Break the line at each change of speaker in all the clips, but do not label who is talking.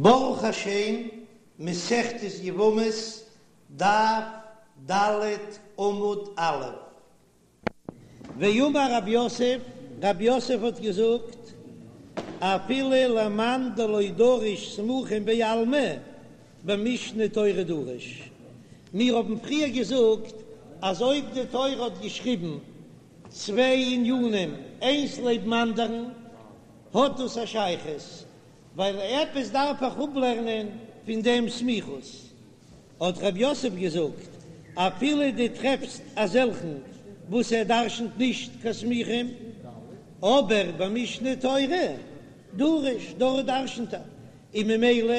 ברוך השם, מסכת יבמות, דף ד עמוד א'. ואמר רב יוסף, רב יוסף האט געזאגט, אפילו למאן דלא דריש סמוכים בעלמא, במשנה תורה דריש. מיר האבן פריער געזאגט אז אויב די תורה האט געשריבן צוויי ענינים איינס לעבן אנדערן, האט דאס א שייכות, ווייל עפעס דארף איך אפלערנען פון דעם סמיכות, האט רב יוסף געזאגט, אפילו דו טרעפסט אזעלכן וואס ער דרשנ'ט נישט קיין סמוכים, אבער במשנה תורה דריש, דארט דרשנ'ט ער, און ממילא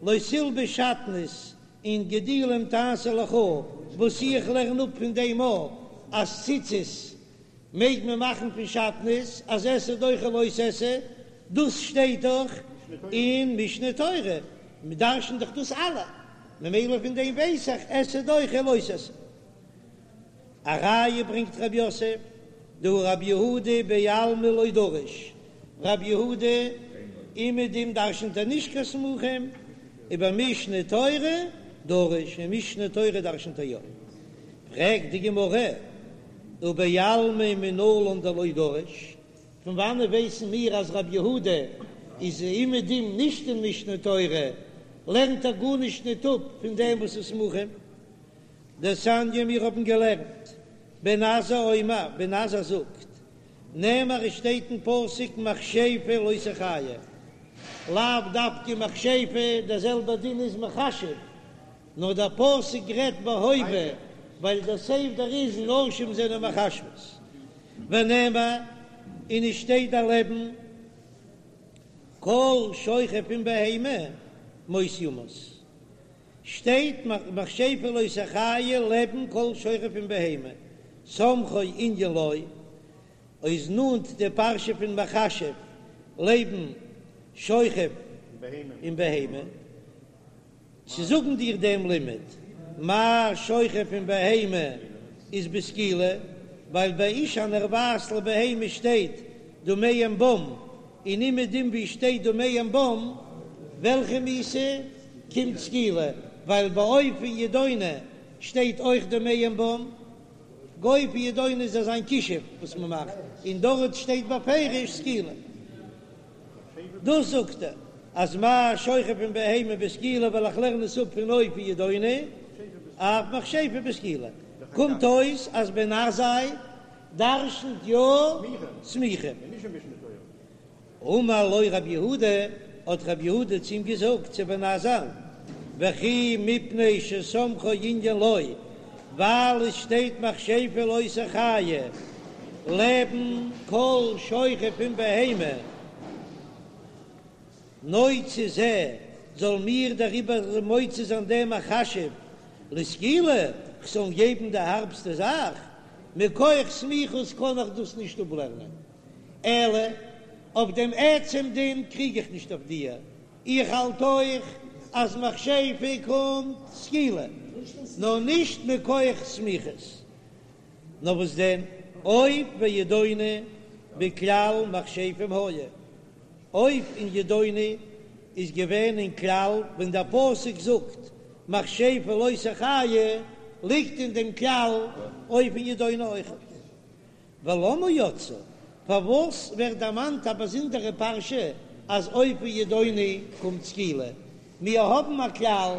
לא תלבש שעטנז און גדילים תעשה לך, וואס איך לערן אפ פון דעם א אז ציצית מעג מען מאכן פון שעטנז אז עשה דוחה לא תעשה, דאס שטייט דאך אין משנה תורה, מ'דרש'נט דאך דאס אלע, ממילא פון דעם ווייס איך עשה דוחה לא תעשה. א ראיה ברענגט רב יוסף, דהא רב יהודה בעלמא לא דריש, רב יהודה אומעדום דרש'נט ער נישט קיין סמוכים, ובמשנה תורה דריש, אין משנה תורה דרש'נט ער יא. פרעגט די גמרא, ובעלמא מנלן דלא דריש, פון וואנעט ווייסן מיר אז רב יהודה איז אומעדום נישט אין משנה תורה, לערנט ער גארנישט ניט אפ פון דעם וואס איז סמוכים? דתניא מיר האבן געלערנט, בן עזאי אומר, בן עזאי זאגט, נאמר עס שטייט אין פסוק מכשפה לא תחיה, לאו דווקא מכשפה, דער זעלבער דין איז מכשף, נאר דער פסוק רעדט בהווה ווייל דער סדר איז נשים זענען מכשפות, ונאמר און עס שטייט דערלעבן כל שוכב עם בהמה מות יומת, שטייט מכשפה לא תחיה לעבן כל שוכב עם בהמה, סמכו ענין לו, איז נאנט די פרשה פון מכשף לעבן שוכב עם בהמה. צו זאגן דיר דעם לימוד, מה שוכב עם בהמה איז בסקילה, ווייל ביי אשה הנרבעת לבהמה שטייט דמיהם בם, און אומעדום ווי שטייט דמיהם בם, וועלכע מיתה קומט סקילה, ווייל ביי עוף און ידעוני שטייט אויך דמיהם בם, עוף און ידעוני איז אזא כישוף וואס מען מאכט, און דארט שטייט בפירוש סקילה. דאס זאגט ער אז מה שוכב עם בהמה בסקילה ווייל איך לערן עס אפ פון עוף און ידעוני אף מכשפה בסקילה קומט אויס אז בן עזאי דרשנ'ט יא סמוכים. אמר לו רב יהודה, האט רב יהודה צו אים געזאגט צו בן עזאי, וכי מפני שסמכו ענין לו, ווייל עס שטייט מכשפה לא תחיה לעבן כל שוכב עם בהמה, נוציא זה, זאל מיר דעריבער מוציא זיין דעם מכשף לסקילה, כ'זאל אים געבן די הארבסטע זאך, מכח סמיכות קען איך דאס נישט אפלערנען, אלא אויף דעם עצם דין קריג איך נישט אויף דיר, איך האלט אויך אז מכשפה קומט סקילה, נאר נישט מכח סמיכות. נאר וואס דען, עוף וידעוני בכלל מכשפים היו, עוף און ידעוני איז געווען אין כלל ווען דער פסוק זאגט מכשפה לא תחיה, ליגט אין דעם כלל עוף און ידעוני אויכעט. ולמה יצאו, פארוואס ווערט דערמאנט א באזונדערע פרשה אז עוף וידעוני קומט סקילה? מיר האבן א כלל,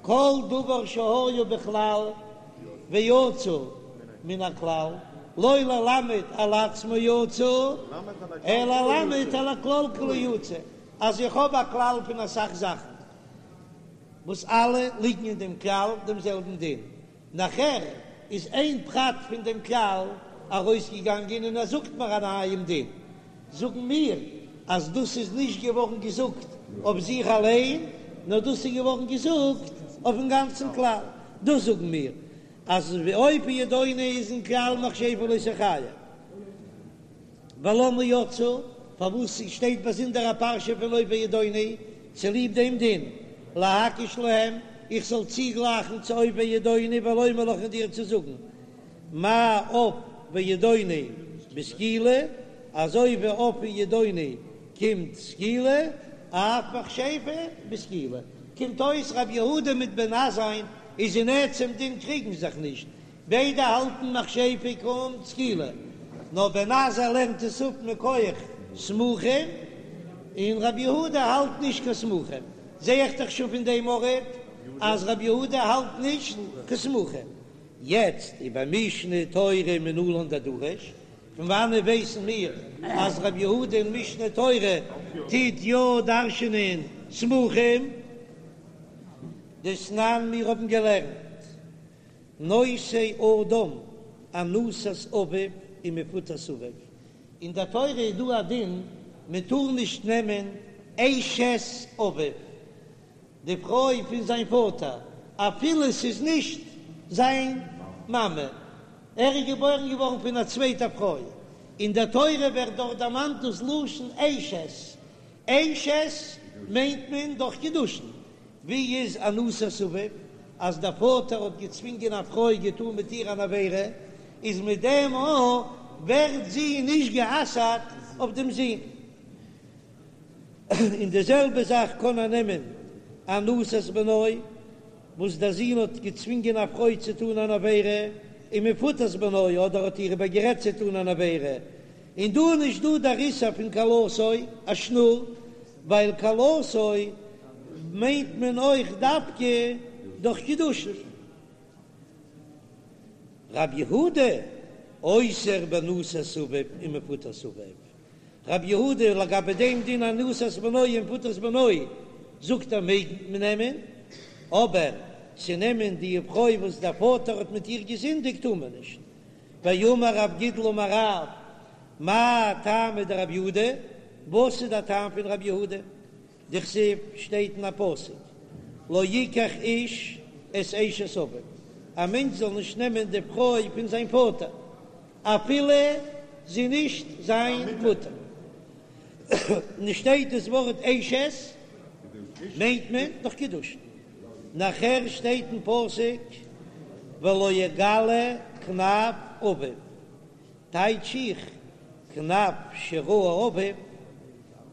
כל דבר שהיה בכלל ויצא מן הכלל, לא ללמד על עצמו יצא, אלא ללמד על הכלל כולו יצא, אז איך האב א כלל פון אסאך זאכן וואס אלע ליגן אין דעם כלל דעם זעלבן דין, נאכער איז איין פרט פון דעם כלל ארויסגעגאנגען און ער זאגט מיר א נייעם דין, זאגן מיר אז דאס איז נישט געווארן געזאגט אויף זיך אליין, נאר דאס איז געווארן געזאגט אויפן גאנצן כלל, דאס זאגן מיר אז עוף וידעוני איז אין כלל מכשפה לא תחיה. ולמה יצאו, פארוואס שטייט באזונדער א פרשה פון עוף וידעוני? צוליב דעם דין, להקיש להם, איך זאל צוגלייכן צו עוף וידעוני ולומר לך און דיר צו זאגן, מה עוף וידעוני בסקילה, אזוי ווי עוף און ידעוני קומט סקילה. אף מכשפה בסקילה. קומט אויס רבי יהודה מיט בן עזאי'ן איז אין עצם דין קריגן זיך נישט, ביידע האלטן מכשפה קומט סקילה, נאר בן עזאי לערנט עס אפ מכח סמוכים, און רבי יהודה האלט נישט קיין סמוכים. זע איך דאך שוין פון דעם ארט אז רבי יהודה האלט נישט קיין סמוכים. יעצט ובמשנה תורה מנלן דדריש, פון וואנעט ווייסן מיר אז רבי יהודה אין משנה תורה טוט יא דרש'נען סמוכים? דתנן מיר האבן געלערנט נושא אדם אנוסת אביו ומפותת אביו, אין דער תורה איז דא א דין מען טאר נישט נעמען אשת אביו, די פרוי פון זיין פאטער, אפילו ס'איז נישט זיין מאמע, ער איז געבוירן געווארן פון א צווייטע פרוי, אין דער תורה ווערט דארט דערמאנט דאס לשון אשת, אשת מיינט מען דורך קידושין, ווי איז אנוסת אביו, אז דער פאטער האט געצווינגען א פרוי געטאן מיט איר אן עבירה, איז מיט דעם א ווערט זי נישט גע'אסר'ט אויף דעם זון. און די זעלבע זאך קען ער נעמען אנוסת בנו, וואס דער זון האט געצווינגען א פרוי צו טאן אן עבירה, און מפותת בנו, אדער האט איר איבערגערעדט צו טאן אן עבירה, און דא איז נישט דא דער איסור פון כלתו, א שנור, ווייל כלתו מיינט מען אויך דווקא דורך קידושין. רב יהודה אוסר באנוסת אביו ומפותת אביו, רב יהודה לגבי דעם דין אנוסת בנו ומפותת בנו זאגט ער מעג מען נעמען, אבער צו נעמען די פרוי וואס דער פאטער האט מיט איר געזינדיגט טאר מען נישט. ואמר רב גידל אמר רב, מאי טעמא דרב יהודה, וואס איז דער טעם פון רב יהודה? דכתיב שטייט אין א פסוק לא יקח איש את אשת אביו, א מענטש זאל נישט נעמען די פרוי פון זיין פאטער אפילו זי נישט זיין מוטער, און שטייט דאס ווארט אשת מיינט מען דורך קידושין, נאכער שטייט אין פסוק ולא יגלה כנף אביו, טייטש איך כנף שראה אביו,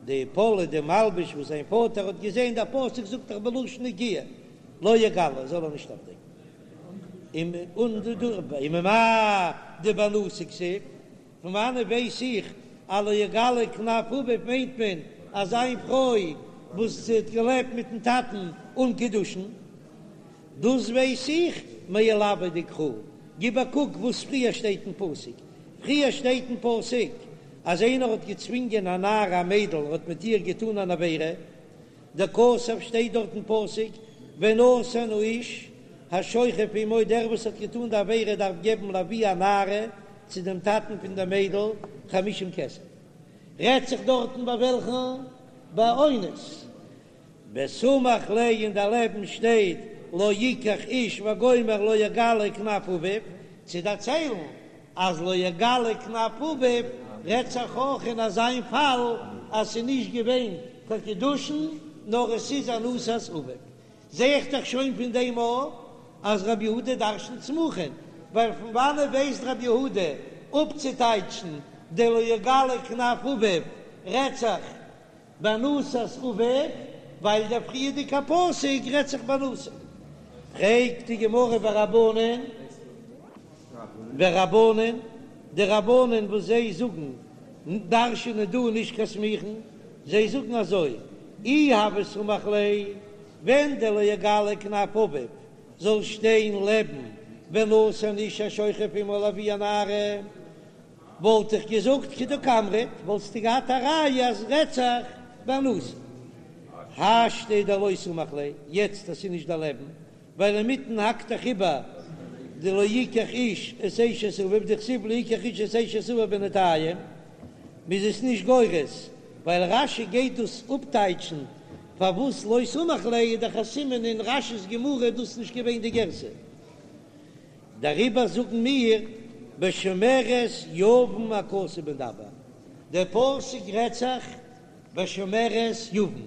די פאלע די מלבוש וואס זיין פאטער האט געזען, דער פסוק זאגט דאך בלשון נקיה, לא יגלה זאל ער נישט אויפדעקן. וממאי דבאנוסה כתיב, פון וואנעט ווייס איך אז לא יגלה כנף אביו מיינט מען אז זיין פרוי וואס האט געלעבט מיטן טאטן אן קידושין? דאס ווייס איך מעילויה דקרא, גיב א קוק וואס פריער שטייט אין פסוק, פריער שטייט אין פסוק אז איינער האט געצווינגען א נערה א מיידל און האט מיט איר געטאן אן עבירה, דכתב שטייט דארט אין פסוק ונתן האיש השוכב עמה דער וואס האט געטאן די עבירה דארף געבן לאבי הנערה צו דעם טאטן פון דער מיידל חמישים כסף, רעדט זיך דארטן ביי וועלכן? ביי אונס. וסמיך ליה און דערלעבן שטייט לא יקח איש וגומר לא יגלה כנף אביו, צו דערציילן אז לא יגלה כנף אביו רעדט זיך אויך אין אזיין פאל אז ס'איז נישט געווען קיין קידושין נאר עס איז אנוסת אביו, זע איך דאך שוין פון דעם אויך אז רבי יהודה דרשנ'ט סמוכין, ווייל פון וואנעט ווייסט רבי יהודה אפצוטייטשן די לא יגלה כנף אביו רעדט זיך באנוסת אביו, ווייל דער פריערדיגע פסוק רעדט זיך באנוסה. פרעגט די גמרא ורבנן, ורבנן, די רבנן וואס זיי זאגן דרש'נען דא נישט קיין סמוכין, זיי זאגן אזוי, אי הוה סמיך ליה, ווען דער לא יגלה כנף אביו זאל שטיין לעבן ונתן האיש השוכב עמה לאבי הנערה, וואלט איך געזאגט כדקאמרת, וואלסטו געהאט א ראיה אז רעדט זיך באנוסה. השתא דלא סמיך ליה, יעצט אז ס'איז נישט דערלעבן, ווייל אינמיטן האקט דאך איבער די לא יקח איש את אשת אביו דכתיב לא יקח איש את אשת אביו בינתיים, מ'איז עס נישט גורס, ווייל רש"י גייט דאס אפטייטשן פארוואס לא סמיך ליה איז דאך א סימן אין רש"י'ס גמרא איז דאס נישט געווען די גירסא. דעריבער זאגן מיר בשומרת יבם הכתוב מדבר, דער פסוק רעדט זיך בשומרת יבם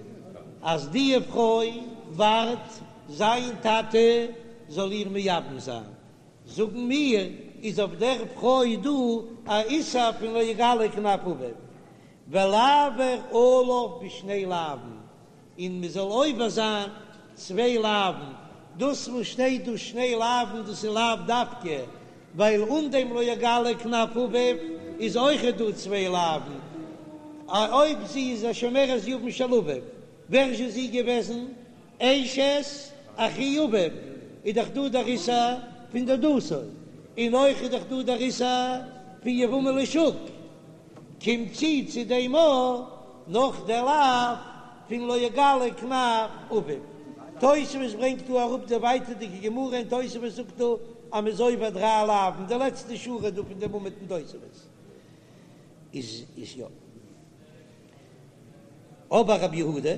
אז די פרוי ווארט זיין טאטע זאל איר מייבם זיין, זאגן מיר איז אויף דער פרוי דא א איסור פון לא יגלה כנף אביו, ולעבור עליו בשני לאווין. און מען זאל עובר זיין צוויי לאווין, דאס וואס שטייט דא שני לאווין דאס איז לאו דווקא, ווייל אן דעם לא יגלה כנף אביו איז אויכעט דא צוויי לאווין, אויב זי איז א שומרת יבם של אביו, ווער איז זי געוועזן? אשת אחי אביו, איז דאך דא דער איסור פון דודתו, און אויך איז דאך דא דער איסור פון יבמה לשוק, קומט צו צו דעם אויך נאך דער לאו פון לא יגלה כנף אביו. תוספות ברענגט דא אראפ די ווייטערדיגע גמרא און תוספות זאגט דא אז מ'איז עובר דריי לאווין, די לעצטע שורה דא פון דעם עמוד אין תוספות איז איז יא. אבער רבי יהודה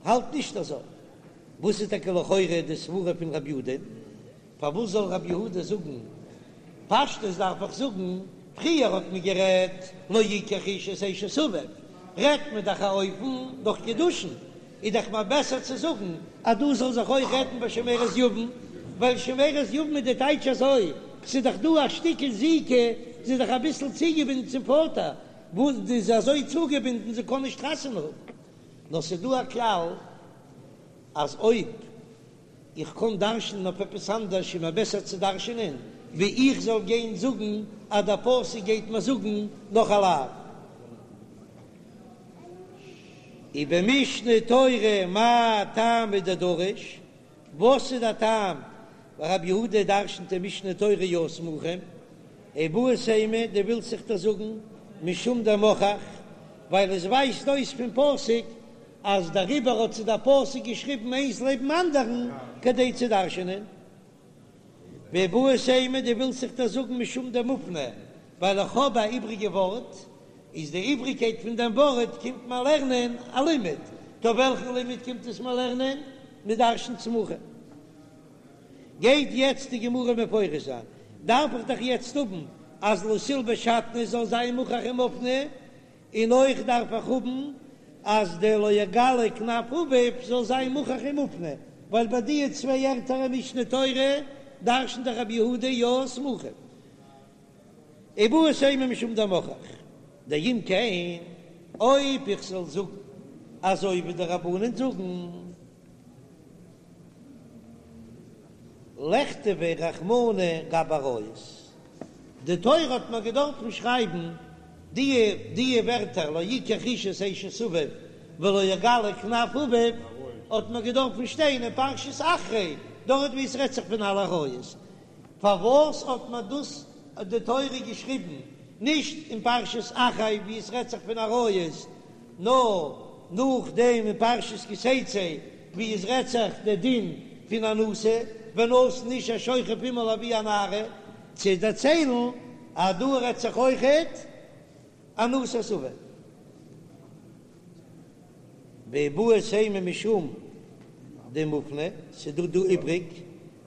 האלט נישט אזוי. וואס איז טאקע לכאורה די סברה פון רבי יהודה? פארוואס זאל רבי יהודה זאגן פשטות דארף איך זאגן, פריער האט מען גערעדט לא יקח איש את אשת אביו, רעדט מען דאך א אופן דורך קידושין, איז דאך מער בעסער צו זאגן אז דא זאל זיך אויך רעדן ביי שומרת יבם, ווייל שומרת יבם איז די טייטש אזוי, ס'איז דאך דא א שטיקל זיקה, זי איז דאך אביסל צוגעבינדן צום פאטער, וואס זי איז אזוי צוגעבינדן זי קען נישט חתונה האבן, נאר ס'איז דא א כלל אז אויב איך קען דרש'נען אויף עפעס אנדערש איז מיר בעסער צו דרש'נען ווי איך זאל גיין זאגן אז דער פסוק גייט מיר זאגן נאך א לאו. ובמשנה תורה מאי טעמא דדריש, וואס איז דער טעם רבי יהודה דרש'נט אין משנה תורה יא סמוכים, איבעית אימא דו ווילסט זיך דאס זאגן משום דמוכח, ווייל עס ווייזט אויס פון פסוק אז דעריבער האט זיי דער פסוק געשריבן איינס לעבן אנדערן כדי צו דרש'נען. ואיבעית אימא דו ווילסט זיך דאס זאגן משום דמופנה, ווייל איך האב א איבריגע ווארט, איז די איבריגקייט פון דעם ווארט קומט מיר לערנען א לימוד, טא וועלכן לימוד קומט עס מיר לערנען? מ'דרש'נט סמוכים. גייט יעצט די גמרא מפרש זיין, דארף איך דאך יעצט האבן אז לא תלבש שעטנז זאל זיין מוכח ומופנה, און אויך דארף איך האבן אז דער לא יגלה כנף אביו זאל זיין מוכח ומופנה, ווייל ביי די צוויי ערטער אין משנה תורה דרש'נט דאך רבי יהודה יא סמוכים. איבעית אימא משום דמוכח דאם כן, אויב איך זאל זאגן אזוי ווי די רבנן זאגן, לכתביה רחמנא גבי עריות, די תורה האט מיר געדארפן שרייבן די די ווערטער לא יקח איש את אשת אביו ולא יגלה כנף אביו, האט מיר געדארפן שטיין אין פרשת אחרי, דארט ווי עס רעדט זיך פון אלע עריות, פארוואס האט מיר דאס די תורה געשריבן נישט אין פרשת אחרי ווי עס רעדט זיך פון עריות, נאר נאכדעם אין פרשת כי תצא ווי עס רעדט זיך די דין פון אנוסה ונתן איש השוכב עמה לאבי הנערה, צו דערציילן אז דא רעדט זיך אויכעט אנוסת אביו. ואיבעית אימא משום דמופנה, ס'דא דא איבריג,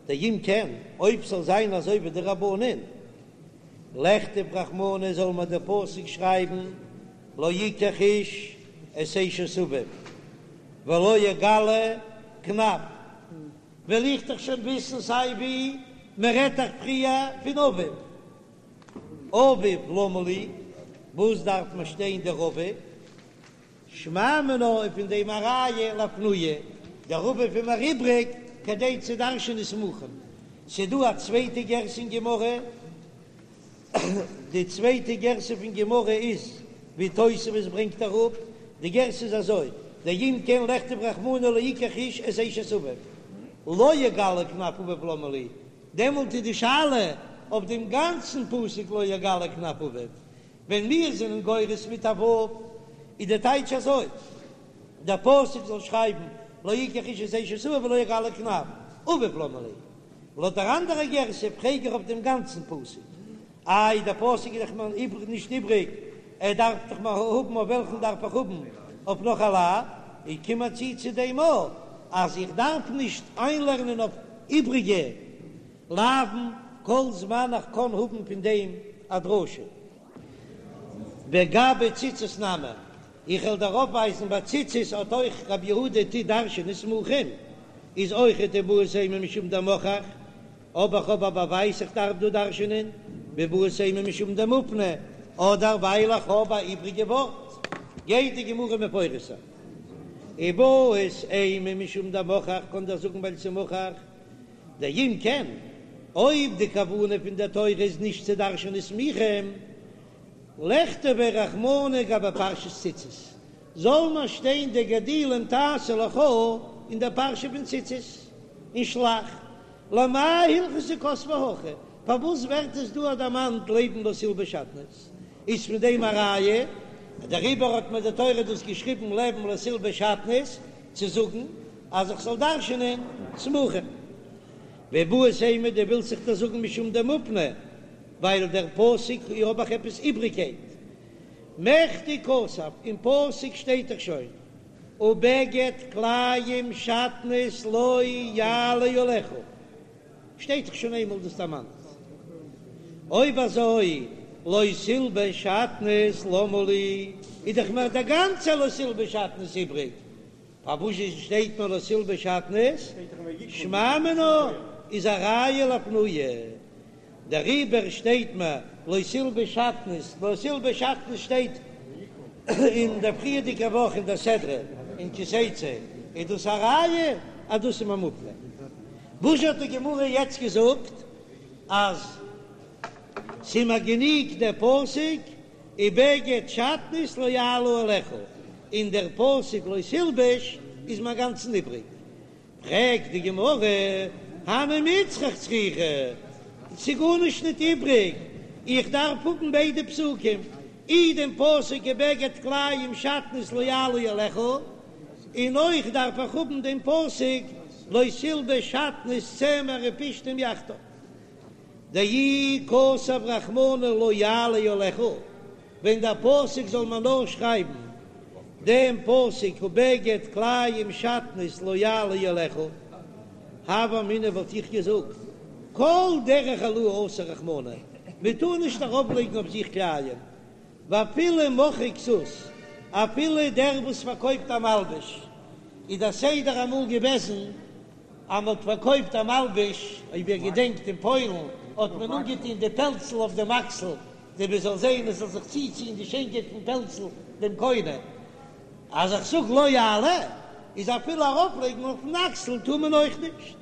דאם כן, אויב ס'זאל זיין אזוי ווי די רבנן, לכתוב רחמנא זאל מיר דער פסוק שרייבן לא יקח איש את אשת אביו ולא יגלה כנף, וועל איך דאך שוין וויסן סיי ווי מען רעדט דאך פריער פון אביו, אביו למה לי, וואס דארף מיר שטיין דער אביו? שמע מינה איז פון דעם א ראיה לאפנויי, דער אביו איז מיר איבריג כדי צו דרש'ענען סמוכים. ס'דא א צווייטע גירסא אין גמרא, די צווייטע גירסא פון גמרא איז ווי תוספות ברענגט אראפ, די גירסא איז אזוי, דאם כן לכתוב רחמנא לא יקח איש את אשת אביו, לא יגלה כנף אביו למה לי, דעמאלט איז די שאלה אויף דעם גאנצן פסוק לא יגלה כנף אביו, ווען מיר זענען גורס מיט א ו' איז די טייטש אזוי, דער פסוק זאל שרייבן לא יקח איש את אשת אביו ולא יגלה כנף אביו למה לי. לויט דער אנדערע גירסא פרעג איך אויף דעם גאנצן פסוק. איי דער פסוק איז דאך מיר נישט איבריג, ער דארף דאך מיר האבן אויף וועלכן דארף איך האבן אויף נאך א לאו, איך קום צו צו דעם אויך אז איך דארף נישט איינלערנען אויף איבריגע לאוין כל זמן איך קען האבן פון דעם א דרשה. וגבי ציצית נמי, איך וועל דיר אויפווייזן ביי ציצית האט אויך רבי יהודה טוט דרש'ענען סמוכים, איז אויכעט איבעית אימא משום דמוכח, אבער איך האב א באווייז איך דארף דא דרש'ענען, ואיבעית אימא משום דמופנה, אדער ווייל איך האב א איבריגע ווארט, גייט די גמרא מפרש זיין. איבעית אימא משום דמוכח, קען דאך זאגן ווייל ס'מוכח דאם כן, אויב די כוונה פון דער תורה איז נישט צו דרש'ענען סמוכים, לכתביה רחמנא גבי פרשת ציצית, זאל מען שטיין די גדילים תעשה לך אין דער פרשה פון ציצית אין שלח, למאי הלכתא כתביה הכא, פארוואס ווערט עס דא דערמאנט לעבן לא תלבש שעטנז? איז פון דעם א ראיה, דעריבער האט מיר די תורה דאס געשריבן לעבן לא תלבש שעטנז, צו זאגן אז איך זאל דרש'נען סמוכים. ואיבעית אימא דו ווילסט זיך דאס זאגן משום דמופנה, ווייל דער פסוק האב איך עפעס איבריגקייט. מכדי כתב, אין פסוק שטייט דאך שוין ובגד כלאים שעטנז לא יעלה עליך, שטייט דאך שוין איינמאל דאס דערמאנט. אויב אזוי לא תלבש שעטנז למה לי, איז דאך מיר דער גאנצער לא תלבש שעטנז איבריג, פארוואס שטייט מיר לא תלבש שעטנז? שמע מינה איז א ראיה לאפנויי, דעריבער שטייט מיר לא תלבש שעטנז, לא תלבש שעטנז שטייט אין דער פריערדיגע וואך אין דער סדרה אין כי תצא, איז דאס א ראיה אז דאס איז מיר מופנה. וואס האט די גמרא יעצט געזאגט אז ס'איז מיר גענוג דער פסוק ובגד שעטנז לא יעלה עליך, און דער פסוק לא תלבש איז מיר אינגאנצן איבריג. פרעגט די גמרא, הני מיצרך צריכי, ס'איז גארנישט ניט איבריג, איך דארף האבן ביידע פסוקים, אי דעם פסוק ובגד כלאים שעטנז לא יעלה עליך, און אויך דארף איך האבן דעם פסוק לא תלבש שעטנז צמר ופשתים יחדיו. דאי כתב רחמנא לא יעלה עליך, ווען דער פסוק זאל מען נאר שרייבן דעם פסוק ובגד כלאים שעטנז לא יעלה עליך, הוה אמינא וואלט איך געזאגט כל דרך העלאה אסר רחמנא, מען טאר נישט ארויפלייגן אויף זיך כלאים, ואפילו מוכרי כסות, אפילו דער וואס פארקויפט א מלבוש, איז דער סדר אמאל געוועזן אז מען האט פארקויפט א מלבוש, אויב איר געדענקט אין פוילן האט מען אנגעטון די פעלצל אויף דעם אקסל, כדי מען זאל זען עס זאל זיך צוציען די שיינקייט פון פעלצל דעם קונה, אז איך זאג לא יעלה, איז אפילו ארויפלייגן אויפן אקסל טאר מען אויך נישט.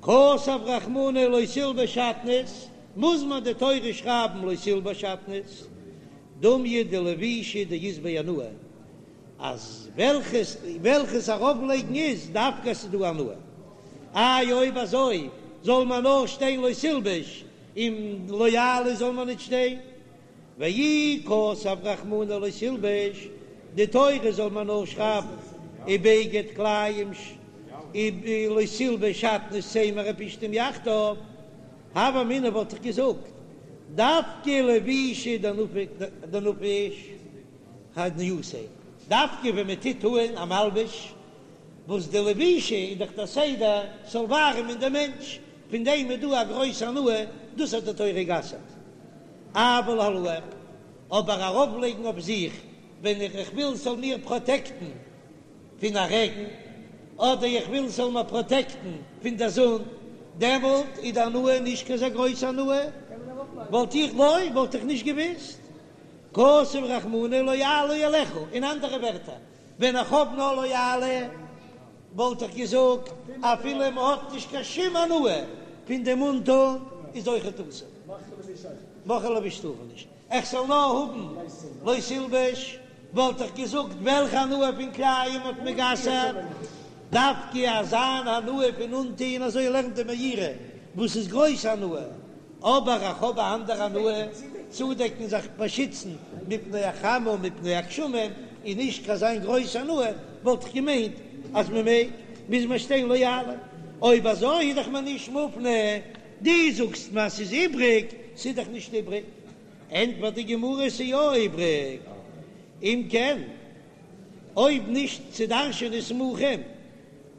כתב רחמנא לא תלבש שעטנז, מוז מען די תורה שרייבן לא תלבש שעטנז, דומיא דלבישה דאית ביה הנאה, אז וועלכעס וועלכעס ארויפלייגן איז דווקא עס איז דא הנאה. איי אויב אזוי זאל מען נאר שטיין לא תלבש און לא יעלה זאל מען ניט שטיין? ואי כתב רחמנא לא תלבש, די תורה זאל מען נאר שרייבן ובגד כלאים לא תלבש שעטנז צמר ופשתים יחדיו, הוה אמינא וואלט איך געזאגט דווקא לבישה דנפיש הנייתיה, דווקא ווען מען טוט אהן א מלבוש, וואס די לבישה איז דאך דער סדר ס'זאל ווארעמען דעם מענטש, פון דעם איז דא א גרויס הנאה, דאס האט די תורה גע'אסר'ט. אבל העלאה, אבער ארויפלייגן אויף זיך ווען איך וויל ס'זאל מיר פראטעקטן פון א רעגן, אדער איך וויל ס'זאל מיר פראטעקטן פון דער זון, דעמאלט איז די הנאה נישט קיין אזא גרויסע הנאה, וואלט איך לא, וואלט איך נישט געוואוסט. כתב רחמנא לא יעלה עליך, אין אנדערע ווערטער, ווען איך האב נאר לא יעלה, וואלט איך געזאגט, אפילו מען האט נישט קיין שום הנאה פון דעם אנטון, איז אויכעט אסור. מוכרי לבוש טאר מען נישט. איך זאל נאר האבן לא תלבש, וואלט איך געזאגט, וועלכע הנאה פון כלאים האט מען גע'אסר'ט? דווקא אזא הנאה פון אנטון, אזוי לערנט די מאירי, וואס איז גרויס הנאה. אבער איך האב א אנדערע הנאה, צודעקן זיך באשיצן מפני החמה ומפני הגשמים איז נישט קיין אזא גרויס הנאה, וואלט איך געמיינט אז מען מעג, מוז מען שטיין לא יעלה, אויב אזוי איז דאך מען נישט מופנה, דו זאגסט מיר אז ס'איז איבריג, ס'איז דאך נישט איבריג, ענטפערט די גמרא ס'איז יא איבריג, אם כן אויב נישט צו דרש'ענען סמוכים,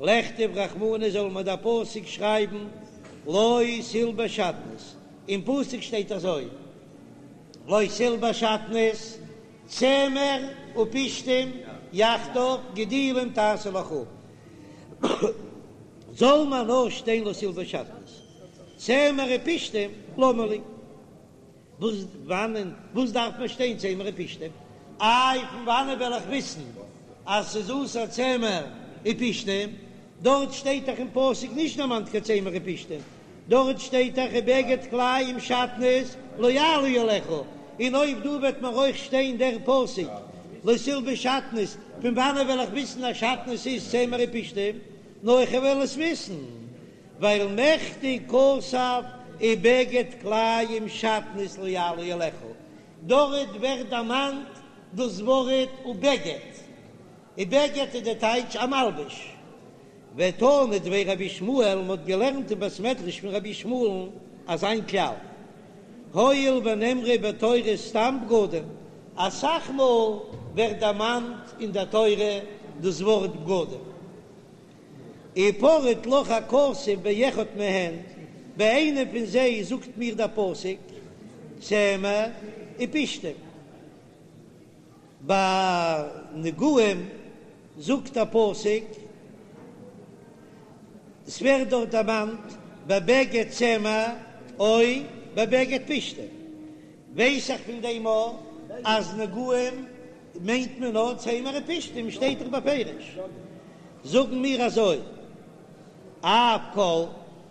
לכתוב רחמנא זאל מען דער פסוק שרייבן לא תלבש שעטנז, אין פסוק שטייט אזוי לא תלבש שעטנז צמר ופשתים יחדיו גדילים תעשה לך, זאל מען נאר שטיין לא תלבש שעטנז צמר ופשתים למה לי. וואס וואנען וואס דארף מען שטיין צמר ופשתים? איי פון וואנען וועל איך וויסן אז ס'איז אסור צמר ופשתים? דארט שטייט דאך אין פסוק נישט דערמאנט קיין צמר ופשתים, דארט שטייט דאך ובגד כלאים שעטנז לא יעלה עליך, און אויב דא וועט מיר אויך שטיין דער פסוק לא תלבש שעטנז, פון וואנען וועל איך וויסן אז שעטנז איז צמר ופשתים? נאר איך וועל עס וויסן ווייל מכדי כתב ובגד כלאים שעטנז לא יעלה עליך, דארט ווערט דערמאנט דאס ווארט ובגד, ובגד איז די טייטש א מלבוש. ותנא דבי רבי ישמעאל, מען האט געלערנט אין בית מדרש פון רבי ישמעאל'ן אזא כלל, הואיל ונאמרו בתורה סתם בגדים, אסאך מאל ווערט דערמאנט אין דער תורה דאס ווארט בגדים, ופרט לך הכתוב באחד מהן, ביי איינע פון זיי זאגט מיר דער פסוק צמר ופשתים. ביי נגעים זאגט א פסוק, עס ווערט דארט דערמאנט בבגד צמר או בבגד פשתים, ווייס איך פון דעם אויך אז נגעים מיינט מען נאר צמר ופשתים, שטייט דאך בפירוש, זאגן מיר אזוי, אף כל,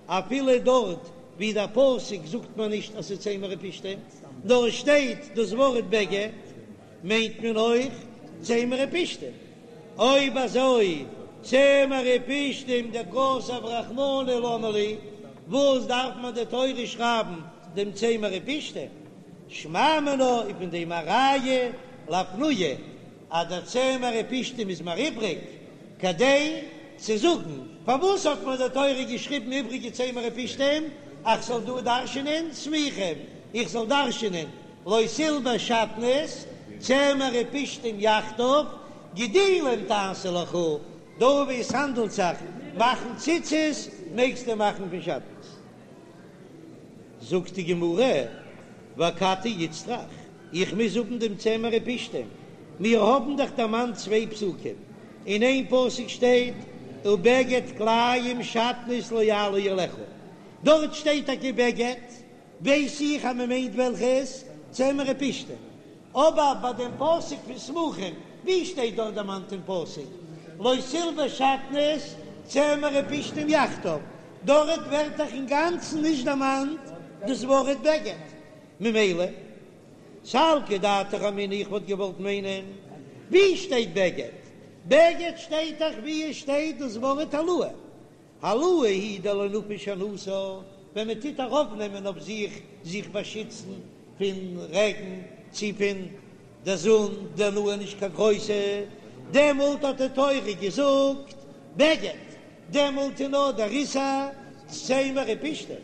אפילו דארט ווי דער פסוק זאגט מען נישט אז ס'איז צמר ופשתים, נאר עס שטייט דאס ווארט בגד, מיינט מען אויך צמר ופשתים. אויב אזוי צמר ופשתים דכתב רחמנא למה לי, וואס דארף מען די תורה שרייבן דעם צמר ופשתים? שמע מינה איז פון דעם א ראיה לאפנויי אז דער צמר ופשתים איז מיר איבריג כדי צו זאגן פארוואס האט מיר די תורה געשריבן איבריגע צמר ופשתים אז כ'זאל דא דרש'ענען סמוכים, איך זאל דרש'ענען לא תלבש שעטנז, צמר ופשתים יחדיו, גדילים תעשה לך, דא ווי עס האנדלט זיך מאכן ציצית מעגסטו מאכן פון שעטנז. זאגט די גמרא, ואכתי איצטריך, איך מוז האבן דעם צמר ופשתים, מיר האבן דאך דערמאנט צוויי פסוקים, אין איין פסוק שטייט ובגד כלאים שעטנז לא יעלה עליך, דארט שטייט טאקע בגד, ווייס איך אז מען מיינט וועלכעס צמר ופשתים, אבער ביי דעם פסוק פון סמוכים, ווי שטייט דארט דערמאנט אין פסוק לא תלבש שעטנז צמר ופשתים יחדיו, דארט ווערט דאך אינגאנצן נישט דערמאנט דאס ווארט בגד, ממילא סלקא דעתך אמינא איך וואלט געוואלט מיינען ווי שטייט בגד? בגד שטייט דאך ווי עס שטייט דאס ווארט העלאה, העלאה היא דלא נפיש הנאתה, ווען מען טוט ארויפנעמען אויף זיך זיך באשיצן פון רעגן צי פון די זון, די הנאה איז נישט קיין גרויסע, דעמאלט האט די תורה געזאגט בגד, דעמאלט איז נאר דער איסור צמר ופשתים.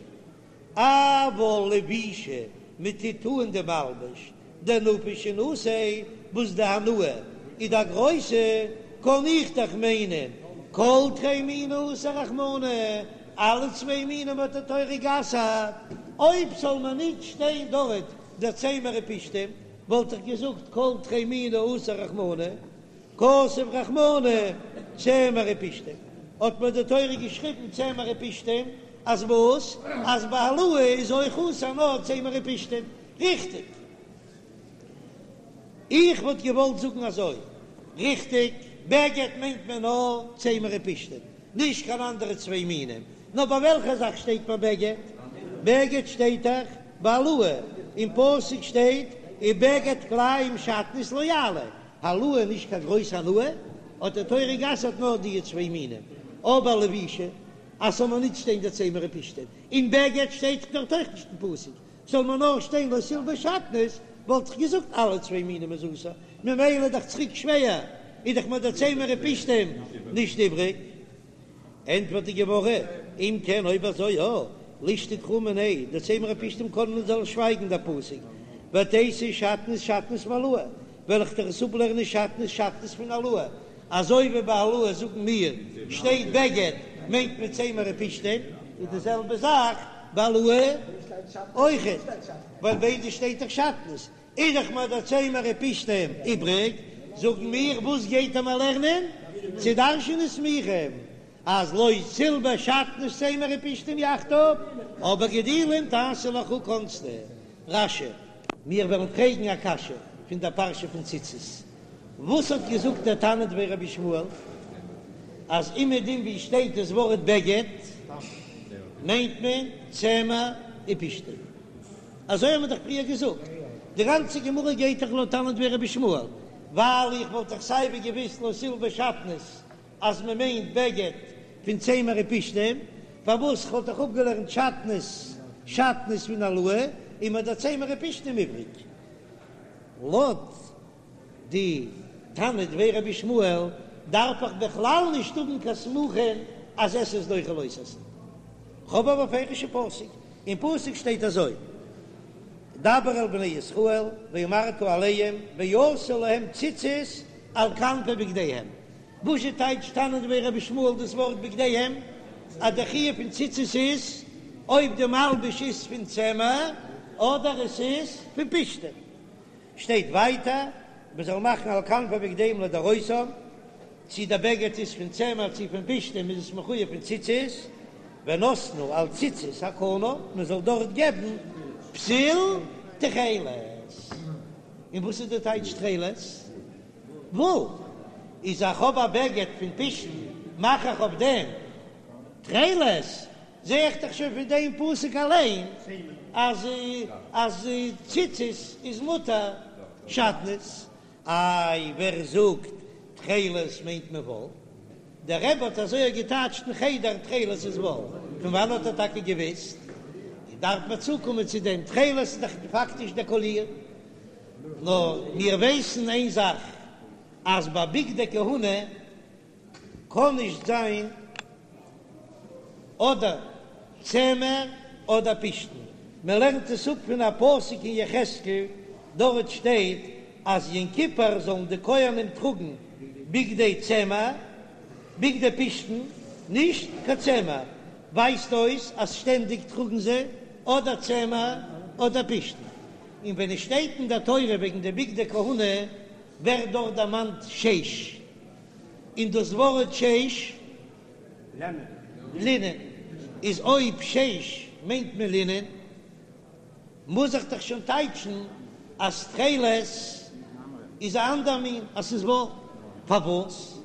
אבל לבישה, מען טוט אן די מלבוש, דנפיש הנאתיה, וואס די הנאה איז א גרויסע, קען איך דאך מיינען כל תרי מיני אסר רחמנא, אלע צוויי מינים האט די תורה גע'אסר'ט, אויב זאל מען ניט שטיין דארט דער צמר ופשתים, וואלט איך געזאגט כל תרי מיני אסר רחמנא, כתב רחמנא צמר ופשתים, האט מיר די תורה געשריבן צמר ופשתים, אז וואס? אז ביי העלאה איז אויך אסור נאר צמר ופשתים, ריכטיג? איך וואלט געוואלט זאגן אזוי, ריכטיג, בגד מיינט מען נאר צמר ופשתים, נישט קיין אנדערע צוויי מינים, נאר ביי וועלכע זאך שטייט ביי בגד? בגד שטייט דאך ביי העלאה, אין פסוק שטייט ובגד כלאים שעטנז לא יעלה, העלאה נישט קיין גרויס הנאה, האט די תורה גע'אסר'ט נאר די צוויי מינים, אבער לבישה אז ס'זאל מיר נישט שטיין די צמר ופשתים, און בגד שטייט דארט אויך נישט אין פסוק, זאל מיר נאר שטיין לא תלבש שעטנז, וואלט איך געזאגט אלע צוויי מינים איז אסור, ממילא איז דאך צוריק שווער, איז דאך מיר די צמר ופשתים נישט איבריג. ענטפערט די גמרא, אם כן אויב אזוי יא, לישתוק קרא מיניה, די צמר ופשתים קען מען זאל שווייגן דער פסוק, ותיתי שעטנז שעטנז מהעלאה, וועל איך דיר עס אפלערנען שעטנז שעטנז פון העלאה, אזוי ווי ביי העלאה זאגן מיר שטייט בגד מיינט מען צמר ופשתים, איז די זעלבע זאך ביי העלאה אויכעט, ווייל ביידע שטייט דאך שעטנז, איז דאך מיר דער צמר ופשתים איבריג, זאגן מיר וואס גייט ער מיר לערנען? צו דרש'נען סמוכים אז לא תלבש שעטנז צמר ופשתים יחדיו, אבער גדילים תעשה לך קאנסטו רש"י. מיר וועלן פרעגן א קשיא. פון דער פרשה פון ציצית. וואס האט געזאגט דער תנא דבי רבי ישמעאל אז אומעדום ווי שטייט דאס ווארט בגד מיינט מען צמר ופשתים? אזוי האבן מיר דאך פריער געזאגט, די גאנצע גמרא גייט דאך לויט תנא דבי רבי ישמעאל, ווייל איך וואלט דאך סייווי געוויסט לא תלבש שעטנז אז מען מיינט בגד פון צמר ופשתים, פארוואס כ'וואלט דאך אפגעלערנט שעטנז שעטנז פון העלאה און מיר דער צמר ופשתים איבריג. לויט די תנא דבי רבי ישמעאל דארף איך בכלל נישט האבן קיין סמוכין אז עשה איז דוחה לא תעשה. כ'האב א בפירוש'ע פסוק, אין פסוק שטייט אזוי, דבר אל בני ישראל ואמרת אליהם ועשו להם ציצית על כנפי בגדיהם, וואזשע טייטשט תנא דבי רבי ישמעאל דאס ווארט בגדיהם? אז דער חיוב פון ציצית איז אויב די מלבוש איז פון צמר אדער עס איז פון פשתים. שטייט ווייטער מען זאל מאכן על כנפי בגדיהם לדורותם, צי דער בגד איז פון צמר צי פון פשתים איז עס מחויב פון ציצית, ונתנו על ציצית הכנף, מען זאל דארט געבן פתיל תכלת. און וואס איז די טייטש תכלת? וואל איז איך האב א בגד פון פשתן מאך איך אויף דעם תכלת, זע איך דאך שוין פון דעם פסוק אליין אז אז ציצית איז מותר שעטנז. איי ווער זאגט תכלת מיינט מען וואל? דער רבי האט אזוי געטייטשט אין חדר תכלת איז וואל, פון וואנען האט ער טאקע געוויסט? דארף מען צוקומען צו דעם, תכלת איז דאך פאקטיש דער קאליר. נאר מיר ווייסן איין זאך, אז ביי בגדי כהונה קען נישט זיין אדער צמר אדער פשתן, מען לערנט עס אפ פון א פסוק אין יחזקאל, דארט שטייט אז יום כיפור זאלן די כהנים טראגן בגדי צמר, בגדי פשתן, נישט קיין צמר, ווייזט אויס אז שטענדיג טראגן זיי אדער צמר אדער פשתן. און ווען עס שטייט אין דער תורה וועגן די בגדי כהונה ווערט דארט דערמאנט שש, און דאס ווארט שש, לינען, איז אויב שש מיינט מען לינען, מוז איך דאך שוין טייטשן אז תכלת איז א אנדער מין, אז ס'איז וואל. פארוואס?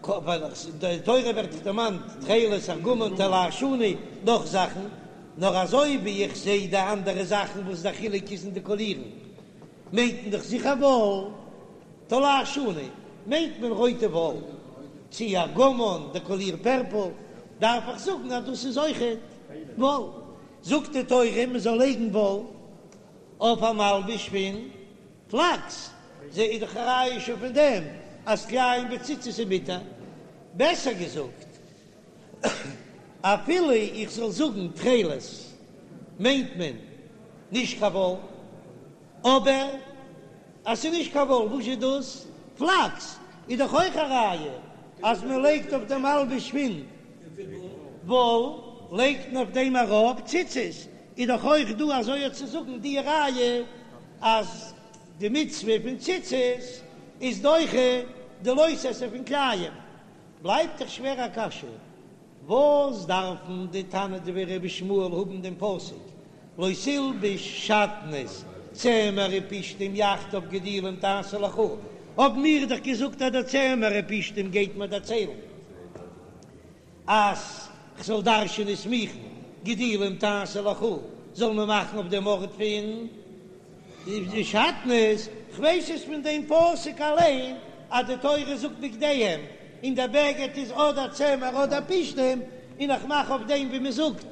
ווייל אין די תורה ווערט דאך דערמאנט תכלת, ארגמן, תולעת שני, נאך זאכן, נאר אזוי ווי איך זע די אנדערע זאכן וואס דער חילוק איז אין די קאלירן, מיינט מען דאך זיכער וואל, תולעת שני מיינט מען רויטע וואל, צי ארגמן די קאליר פערפל, דארף איך זאגן אז דאס איז אויכעט וואל. זאגט די תורה מען זאל לייגן וואל אויף א מלבוש פון פלאקס, זע איז דאך א ראיה שוין פון דעם אז כלאים בציצית איז מותר. בעסער געזאגט, אפילו איך זאל זאגן תכלת מיינט מען נישט קיין וואל, אבער אז ס'איז נישט קיין וואל, וואס איז דאס? פלאקס איז דאך אויך א ראיה אז מען לייגט אויף דעם מלבוש פון וואל לייגט מען אויף דעם ארויף ציצית, איז דאך אויך דא אזוי צו זאגן די ראיה אז די מצוה פון ציצית איז דוחה די לא תעשה פון כלאים, בלייבט דאך שווער א קשיא, וואס דארפן די תנא דבי רבי ישמעאל האבן דעם פסוק לא תלבש שעטנז צמר ופשתים יחדיו גדילים תעשה לך, האבן מיר דאך געזאגט אז דער צמר ופשתים גייט מיר דערציילן אז כ'זאל דרש'ענען סמוכין גדילים תעשה לך, זאל מען מאכן אויף דעם ארט פון די שעטנז, כ'ווייס עס פון דעם פסוק אליין אז די תורה זאגט בגדיהם און דער בגד איז אדער צמר אדער פשתים, און איך מאך אויף דעם ווי מען זאגט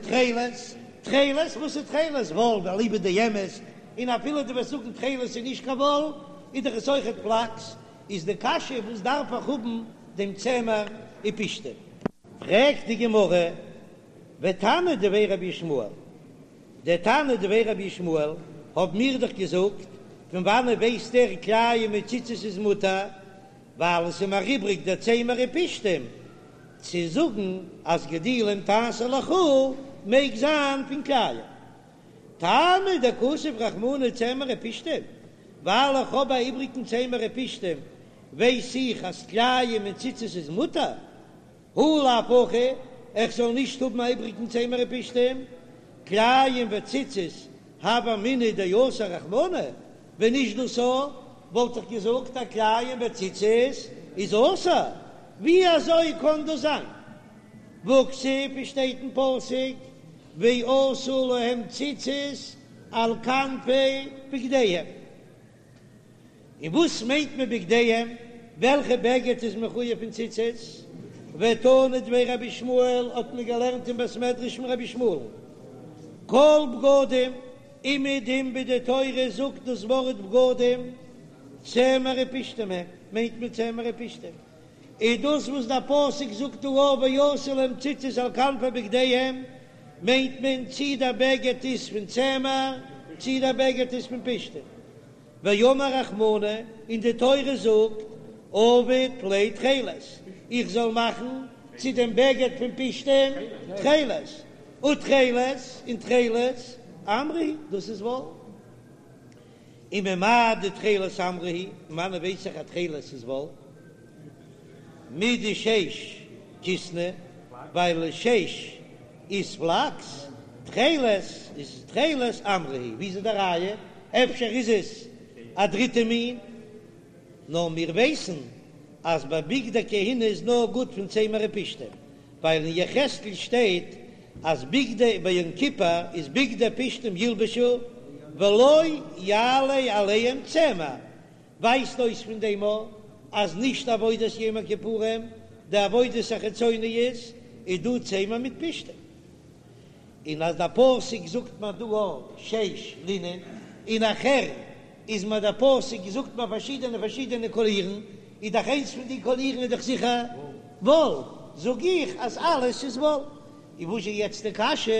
תכלת, תכלת, וואס איז תכלת? וואל, אליבא דאמת, און אפילו דו וועסט זאגן תכלת איז נישט קיין וואל, איז דאך עס אויכעט פלאקס, איז די קשיא וואס דארף איך האבן דעם צמר ופשתים? פרעגט די גמרא, ותנא דבי רבי ישמעאל, דער תנא דבי רבי ישמעאל האב מיר דאך געזאגט, פון וואנעט ווייסט ער כלאים מיט ציצית איז מותר, ווייל עס איז מיר איבריג דער צמר ופשתים, צו זאגן אז גדילים תעשה לך מעג זיין פון כלאים. טעמא דכתב רחמנא צמר ופשתים, ווייל איך האב א איבריגן צמר ופשתים ווייס איך אז כלאים און ציצית איז מותר, הא לאו הכי, איך זאל נישט האבן א איבריגן צמר ופשתים, כלאים וציצית. הוה אמינא דאסר רחמנא, ווען נישט דאס א וואלט איך געזאגט אז כלאים בציצית איז אסור, ווי אזוי קען דאס זיין? והכתיב, עס שטייט אין פסוק ועשו להם ציצית על כנפי בגדיהם. און וואס מיינט מען בגדיהם? וועלכע בגד איז מחויב פון ציצית? ותנא דבי רבי ישמעאל האט מען געלערנט אין בית מדרש פון רבי ישמעאל, כל בגדים, אומעדום ווי די תורה זאגט דאס ווארט בגדים, צמר ופשתים הם, מיינט מען צמר ופשתים, איז דאס וואס דער פסוק זאגט דא ועשו להם ציצית על כנפי בגדיהם, מיינט מען צי דער בגד איז פון צמר צי דער בגד איז פון פשתים. ואמר רחמנא, און די תורה זאגט, עביד ליה תכלת, איך זאל מאכן צו דעם בגד פון פשתים תכלת, ותכלת, און תכלת, עמרא הוא, דאס איז וואל. וממאי דתכלת עמרא הוא, פון וואנען ווייס איך אז תכלת איז וואל? מדשש כיתנא, ווייל שש איז פלאקס, תכלת איז תכלת עמרא הוא, ווי איז די ראיה? אפשר איז עס א דריטע מין? נאר מיר ווייסן אז ביי בגדי כהונה איז נאר גוט פון צמר ופשתים, ווייל אין יחזקאל שטייט אז בגדי ביי יום כיפור איז בגדי פשתים ילבשו ולא יעלה עליהם צמר, ווייזט אויס פון דעם א אז נישט עבודת יום הכיפורים, די עבודות החיצוניות איז דא צמר מיט פשתים, און אז דער פסוק זאגט מיר דא א שש לינען, און נאכהער איז מיר דער פסוק זאגט מיר פארשידענע פארשידענע קאלירן, איז דאך איינס פון די קאלירן איז דאך זיכער וואל, זאג איך אז אלעס איז וואל. און וואס איז יעצט די קשיא?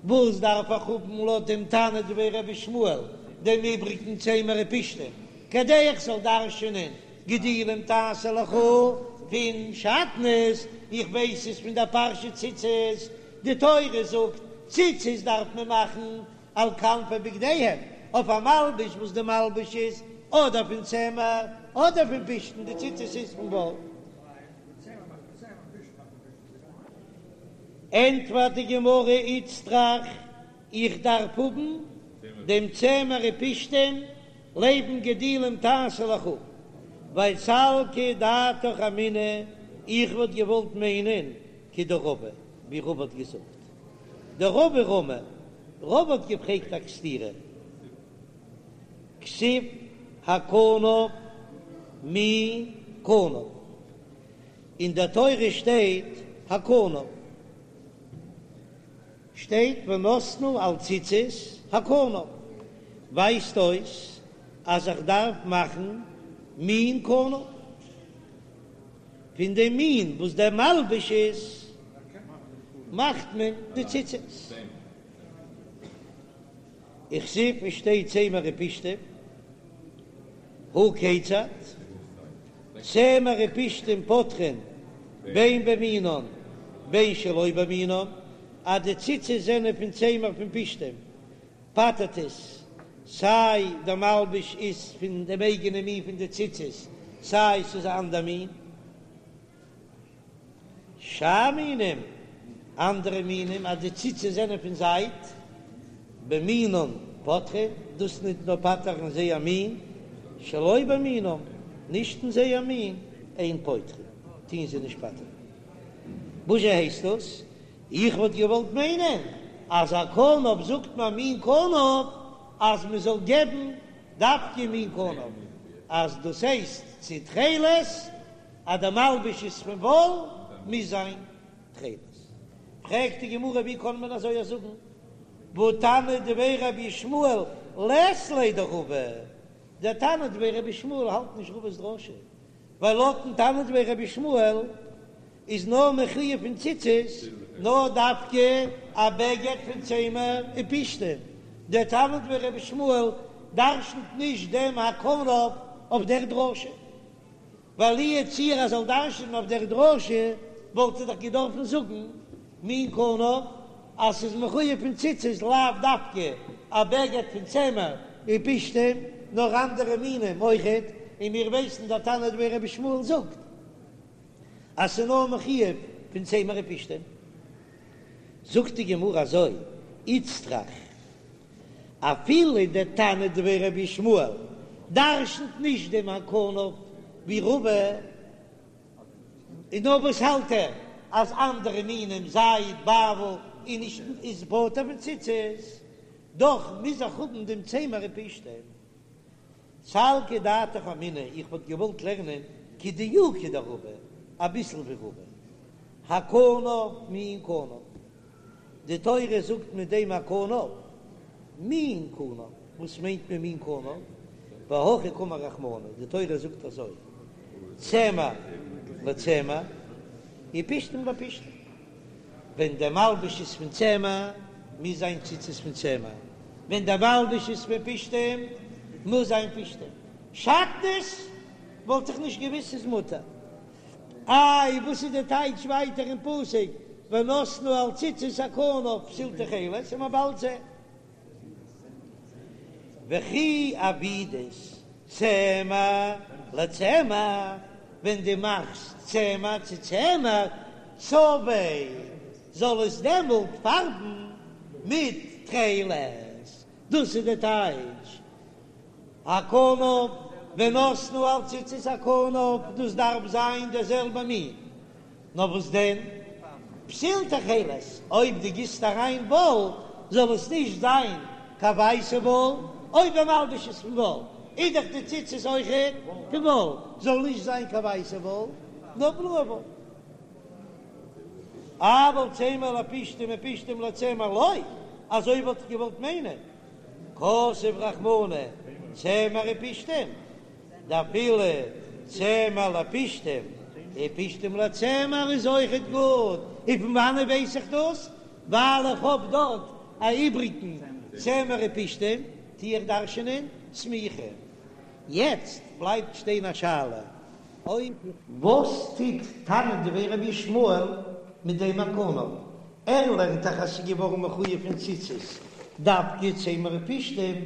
וואס דארף איך האבן לויט דעם תנא דבי רבי ישמעאל דעם איבריגן צמר ופשתים כדי איך זאל דרש'ענען גדילים תעשה לך פון שעטנז? איך ווייס עס פון דער פרשה ציצית, די תורה זאגט ציצית דארף מען מאכן על כנפי בגדיהם, אויף א מלבוש וואס די מלבוש איז אדער פון צמר אדער פון פשתן, די ציצית איז פון וואל. ענטפערט די גמרא איצטריך, איך דארף האבן דעם צמר ופשתים לעבן גדילים תעשה לך, ווייל סלקא דעתך אמינא, איך וואלט געוואלט מיינען כדרבא, ווי רבא האט געזאגט, דרבא רמי, רבא האט געפרעגט א סתירה, כתיב הכנף מין כנף. אין דער תורה שטייט הכנף, שטייט ונתנו על ציצית הכנף, ווייזט אויס אז איך דארף מאכן מין כנף, פון דעם מין וואס דער מלבוש איז מאכט מען די ציצית. וכתיב, עס שטייט צמר ופשתים, הא כיצד? צמר ופשתים פוטרין בין במינן בין שלא במינן, אז די ציצית זענען פון צמר פון פשתים פטר'ט עס, סיי דער מלבוש איז פון דעם אייגענעם מין פון די ציצית, סיי ס'איז א אנדער מין. שאר מינים, אנדערע מינים אז די ציצית זענען פון זייד, במינן פוטרין, דאס ניט נאר פטר'ן זייער מין, שלא במינן, נישט אין זייער מין, אין פוטרין, טוהן זיי נישט פטר'ן. וואזשע הייסט דאס? איך וואלט געוואלט מיינען אז הכנף זאגט מען מין כנף אז מען זאל געבן דווקא מין כנף, אז דאס הייסט צו תכלת אז די מלבוש איז פון וואל מוז זיין תכלת. פרעגט די גמרא ווי קען מען אזוי זאגן, והא תנא דבי רבי ישמעאל לית ליה דרבא, דער תנא דבי רבי ישמעאל האלט נישט רבא'ס דרשה, ווייל לויטן תנא דבי רבי ישמעאל איז נאר מחויב פון ציצית נאר דווקא א בגד פון צמר ופשתים, דער תנא דבי רבי ישמעאל דרשנ'ט נישט דעם הכנף אויף דער דרשה. ווייל לו יצוייר ער זאל דרש'נען אויף דער דרשה, וואלט ער דאך געדארפן זאגן מין כנף אז ס'איז מחויב פון ציצית לאו דווקא א בגד פון צמר ופשתים, נאר אנדערע מינים אויכעט, און מיר ווייסן דער תנא דבי רבי ישמעאל זאגט אז ס'איז נאר מחויב פון צמר ופשתים. זאגט די גמרא אזוי, איצטריך. אפילו דער תנא דבי רבי ישמעאל דרשנ'ט נישט דעם הכנף ווי רבא, און נאר וואס האלט ער אז אנדערע מינים זייד באוול איז נישט איז פטור פון ציצית, דאך מוז איך האבן דעם צמר ופשתים. סלקא דעתך אמינא, איך וואלט געוואלט לערנען כדיוקא דרבא, אביסל ווי רבא. הכנף מין כנף. די תורה זאגט מיט דעם הכנף מין כנף, וואס מיינט מען מין כנף? והכי קאמר רחמנא, די תורה זאגט אזוי, צמר לצמר ופשתים לפשתים, ווען דער מלבוש איז פון צמר מוז זיין ציצית פון צמר, ווען דער מלבוש איז פון פשתים מוז זיין פשתים, שעטנז וואלט איך נישט געוויסט ס'איז מותר. איי וואס איז די טייטש ווייטער אין פסוק ונתנו על ציצית הכנף פתיל תכלת און מען באלד זען וכי עבידת צמר לצמר ווען דו מאכסט צמר צו צמר צבעיה זאל עס דעמאלט פארבן מיט תכלת דאס איז די טייטש הכנף ונתנו על ציצית הכנף, דאס דארף זיין דער זעלבע מין, נאר וואס דען פתיל תכלת, אויב דו גיסט אריין וואל זאל עס נישט זיין קיין ווייסע וואל, אויב דער מלבוש איז פון וואל איז דאך די ציצית אויכעט פון וואל, זאל נישט זיין קיין ווייסע וואל נאר בלויע וואל. אבל צמר לפשתים ופשתים לצמר לא, אזוי וואלט איך געוואלט מיינען. כתב רחמנא צמר ופשתים, דאפילו צמר לפשתים ופשתים לצמר איז אויכעט גוט, און פון וואנעט ווייס איך דאס? ווייל איך האב דארט א איבריגן צמר ופשתים, טו איך דרש'ענען סמיכה. יעצט בלייבט שטיין א שאלה, אויב. וואס טוט תנא דבי רבי ישמעאל מיט דעם הכנף? ער לערנט דאך אז ס'איז געווארן מחויב פון ציצית דווקא צמר ופשתים,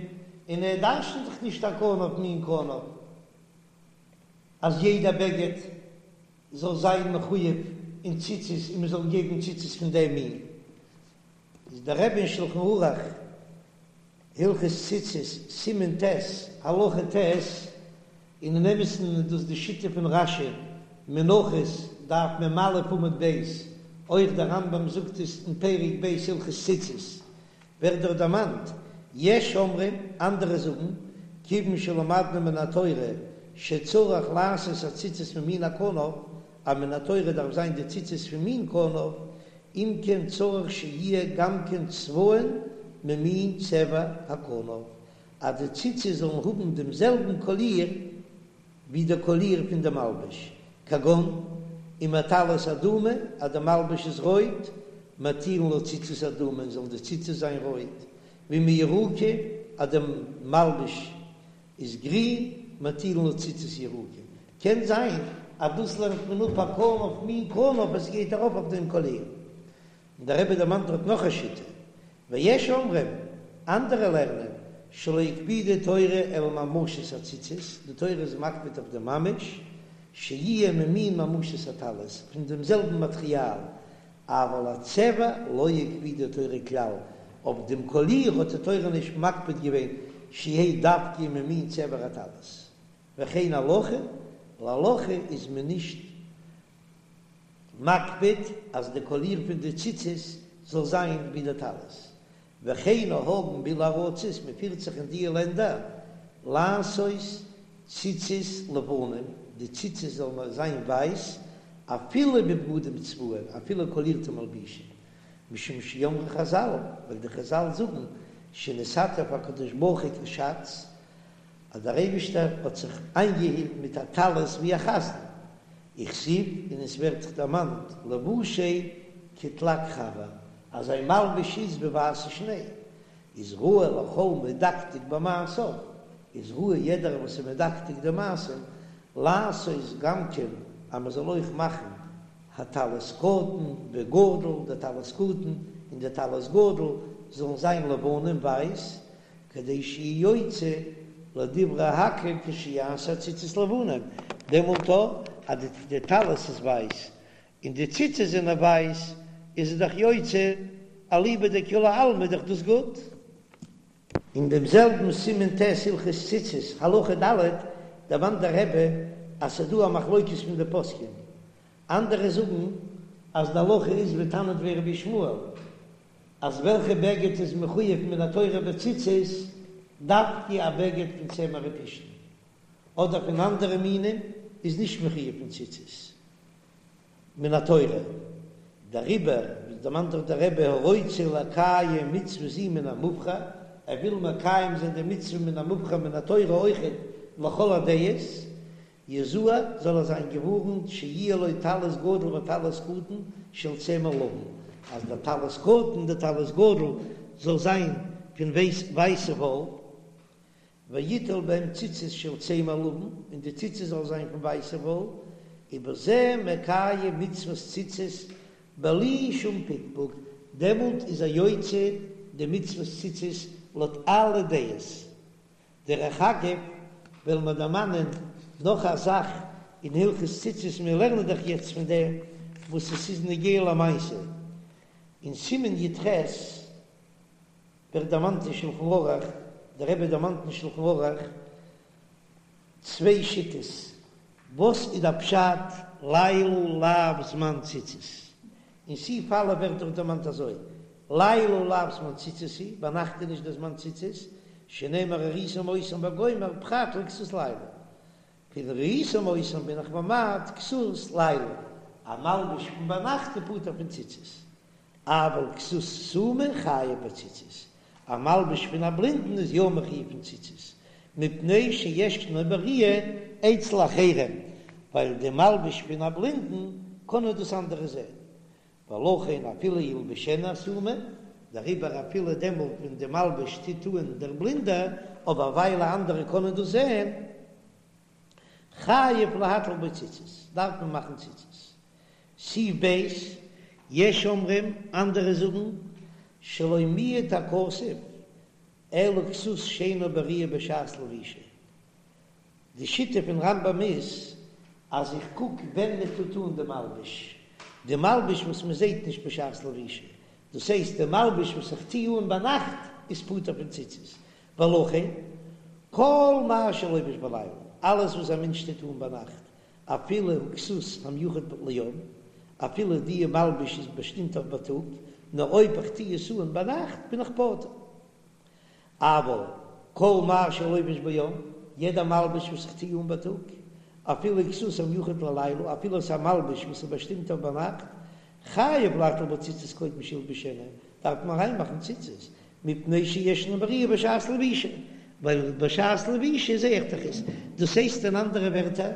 און ער דרש'נט דאך נישט הכנף מין כנף אז יעדע בגד זאל זיין מחויב אין ציצית און מ'זאל געבן ציצית פון דעם מין. איז דער רבי אין שלחן ערוך הלכות ציצית סימן ט' הלכה ט', און אין אמת'ן איז דאס די שיטה פון רש"י, מנחות דף מ"א עמוד ב', אויך דער רמב"ם זאגט עס אין פרק ב' הלכות ציצית, ווערט דארט דערמאנט, יש אומרים, אנדערע זאגן, כיוון שלמדנו מן התורה שצריך לעשות הציצית ממין הכנף, אז מן התורה דארף זיין די ציצית פון מין כנף, אם כן צריך שיהיה גם כן צבען ממין צבע הכנף, אז די ציצית זאלן האבן דעם זעלבן קאליר ווי די קאליר פון די מלבוש, כגון אם הטלית אדומה, אז די מלבוש איז רויט, מטילין לה ציצית אדומה, זאלן די ציצית זיין רויט, ואם היא ירוקה, אז די מלבוש איז גרין, מטילין לה ציצית ירוקה. קען זיין אז דאס לערנט מען אפ הכנף מין כנף עס גייט ארויף אויף דעם קאליר. און דער רבי דערמאנט דארט נאך א שיטה, ויש אומרים, אנדערע לערנען, שלא הקפידה תורה אלא ממשות הציצית, די תורה איז מקפיד אויף די ממש, שיהיה ממין ממשות הטלית, פון דעם זעלבן מאטריאל, אבל הצבע לא הקפידה תורה כלל, אויף דעם קאליר האט די תורה נישט מקפיד געווען שיהא דווקא ממין צבע הטלית, וכן הלכה, להלכה איז מען נישט מקפיד אז די קאליר פון די ציצית זאל זיין ווי די טלית, וכן נוהגין באלו ארצות, מען פירט זיך אין דיע לענדער לעשות ציצית לבנים, די ציצית זאלן זיין ווייס, אפילו בבגדים צבועים, אפילו קאלירטע מלבישים, משום שאמרו חזל, ווייל די חזל זאגן שנתעטף הקדוש ברוך הוא כש"ץ, אז דער אייבישטער האט זיך איינגעהילט מיט א טלית ווי א חזן, וכתיב, און עס ווערט דערמאנט לבושיה כתלג חבר, אז זיין מלבוש איז ווי ווייסע שניי, איז ראוי לכל מדקדק במעשיו, איז ראוי יעדער וואס איז מדקדק די מעשים, לעשות גם כן אז מען זאל אויך מאכן הטלית קטן וגדול, די טלית קטן און די טלית גדול זאלן זיין לבנים ווייס, כדי שיהיה יוצא לדברי הכל כשיעשה ציצית לבנים, דעמאלט אז די טלית איז ווייס און די ציצית זענען ווייס איז עס דאך יוצא אליבא דכולי עלמא איז דאך דאס גוט. אין דעם זעלבן סימן ט' הלכות ציצית, הלכה ד', דערמאנט דער רבי אז ס'איז דא א מחלוקת פון די פוסקים, אנדערע זאגן אז די הלכה איז ווי תנא דבי רבי ישמעאל, אז וועלכע בגד איז מחויב מן התורה בציצית, דווקא א בגד פון צמר ופשתן, אדער פון אנדערע מינים איז נישט מחויב פון ציצית. מן התורה, דעריבער דערמאנט דאך דער רבי הרוצה לקיים מצוה זו מן המובחר, ער וויל מקיים זיין די מצוה מן המובחר מן התורה אויכעט לכל הדעות, יזהר זאל ער זיין געווארנט שיהיה לו טלית גדול וטלית קטן של צמר לבן, אז דער טלית קטן און דער טלית גדול זאל זיין פון ווייסע וואל. ויטול בהם ציצית של צמר לבן, און די ציצית זאל זיין פון ווייסע וואל, ובזה מקיים מצוות ציצית בלי שום פקפוק, דעמאלט איז ער יוצא די מצוות ציצית לויט אלע דעות. דרך אגב וועלן מיר דערמאנען נאך א זאך אין הלכות ציצית, מיר לערנען דאך יעצט פון דעם וואס עס איז נוגע למעשה, אין סימן י"ח, ווערט דערמאנט אין שלחן ערוך, דער רבי דערמאנט אין שלחן ערוך צוויי שיטות, וואס איז דער פשט לילה לאו זמן ציצית, אין סעיף א' ווערט דאך דערמאנט אזוי, לילה לאו זמן ציצית הוא, ביינאכט איז נישט דער זמן ציצית, שנאמר וראיתם אותם וגומר פרט לכסות לילה, פון וראיתם אותם בין איך ממעט כסות לילה, א מלבוש פון ביינאכט איז פטור פון ציצית, אבל כסות סומא חייב בציצית, א מלבוש פון א בלינדן איז יא מחויב פון ציצית, מפני שישנו בראיה אצל אחרים, ווייל די מלבוש פון א בלינדן קענען דאס אנדערע זען, ולכן אפילו ילבשנו הסומא, דעריבער אפילו דעמאלט ווען די מלבוש טוט אן דער בלינדער, אבער ווייל אנדערע קענען דאס זען, חייב להטיל בו ציצית, דארף מען מאכן ציצית. סעיף ב', יש אומרים, אנדערע זאגן, שלא מיעט הכתוב אלא כסות שאינה בראיה בשעת לבישה. די שיטה פון רמב"ם איז אז איך קוק ווען מען טוט אן די מלבוש, די מלבוש וואס מען זעט נישט בשעת לבישה, דאס הייסט די מלבוש וואס איך טו אן ביינאכט איז פטור פון ציצית, ולכן כל מה שלובש בלילה, אלעס וואס א מענטש טוט אן ביינאכט, אפילו הוא כסות המיוחד ליום, אפילו די מלבוש איז באשטימט אויף בייטאג, נאר אויב איך טו עס אן ביינאכט בין איך פטור. אבל כל מה שלובש ביום, יעדע מלבוש וואס איך טו אן בייטאג, אפילו כסות המיוחד ללילה, אפילו עס איז א מלבוש וואס איז באשטימט אויף ביינאכט, חייב להטיל בו ציצית קודם שילבשנו, דארף מען אריינמאכן ציצית, מפני שישנו בראיה בשעת לבישה, ווייל בשעת לבישה זעה איך דאך עס, דאס הייסט אין אנדערע ווערטער,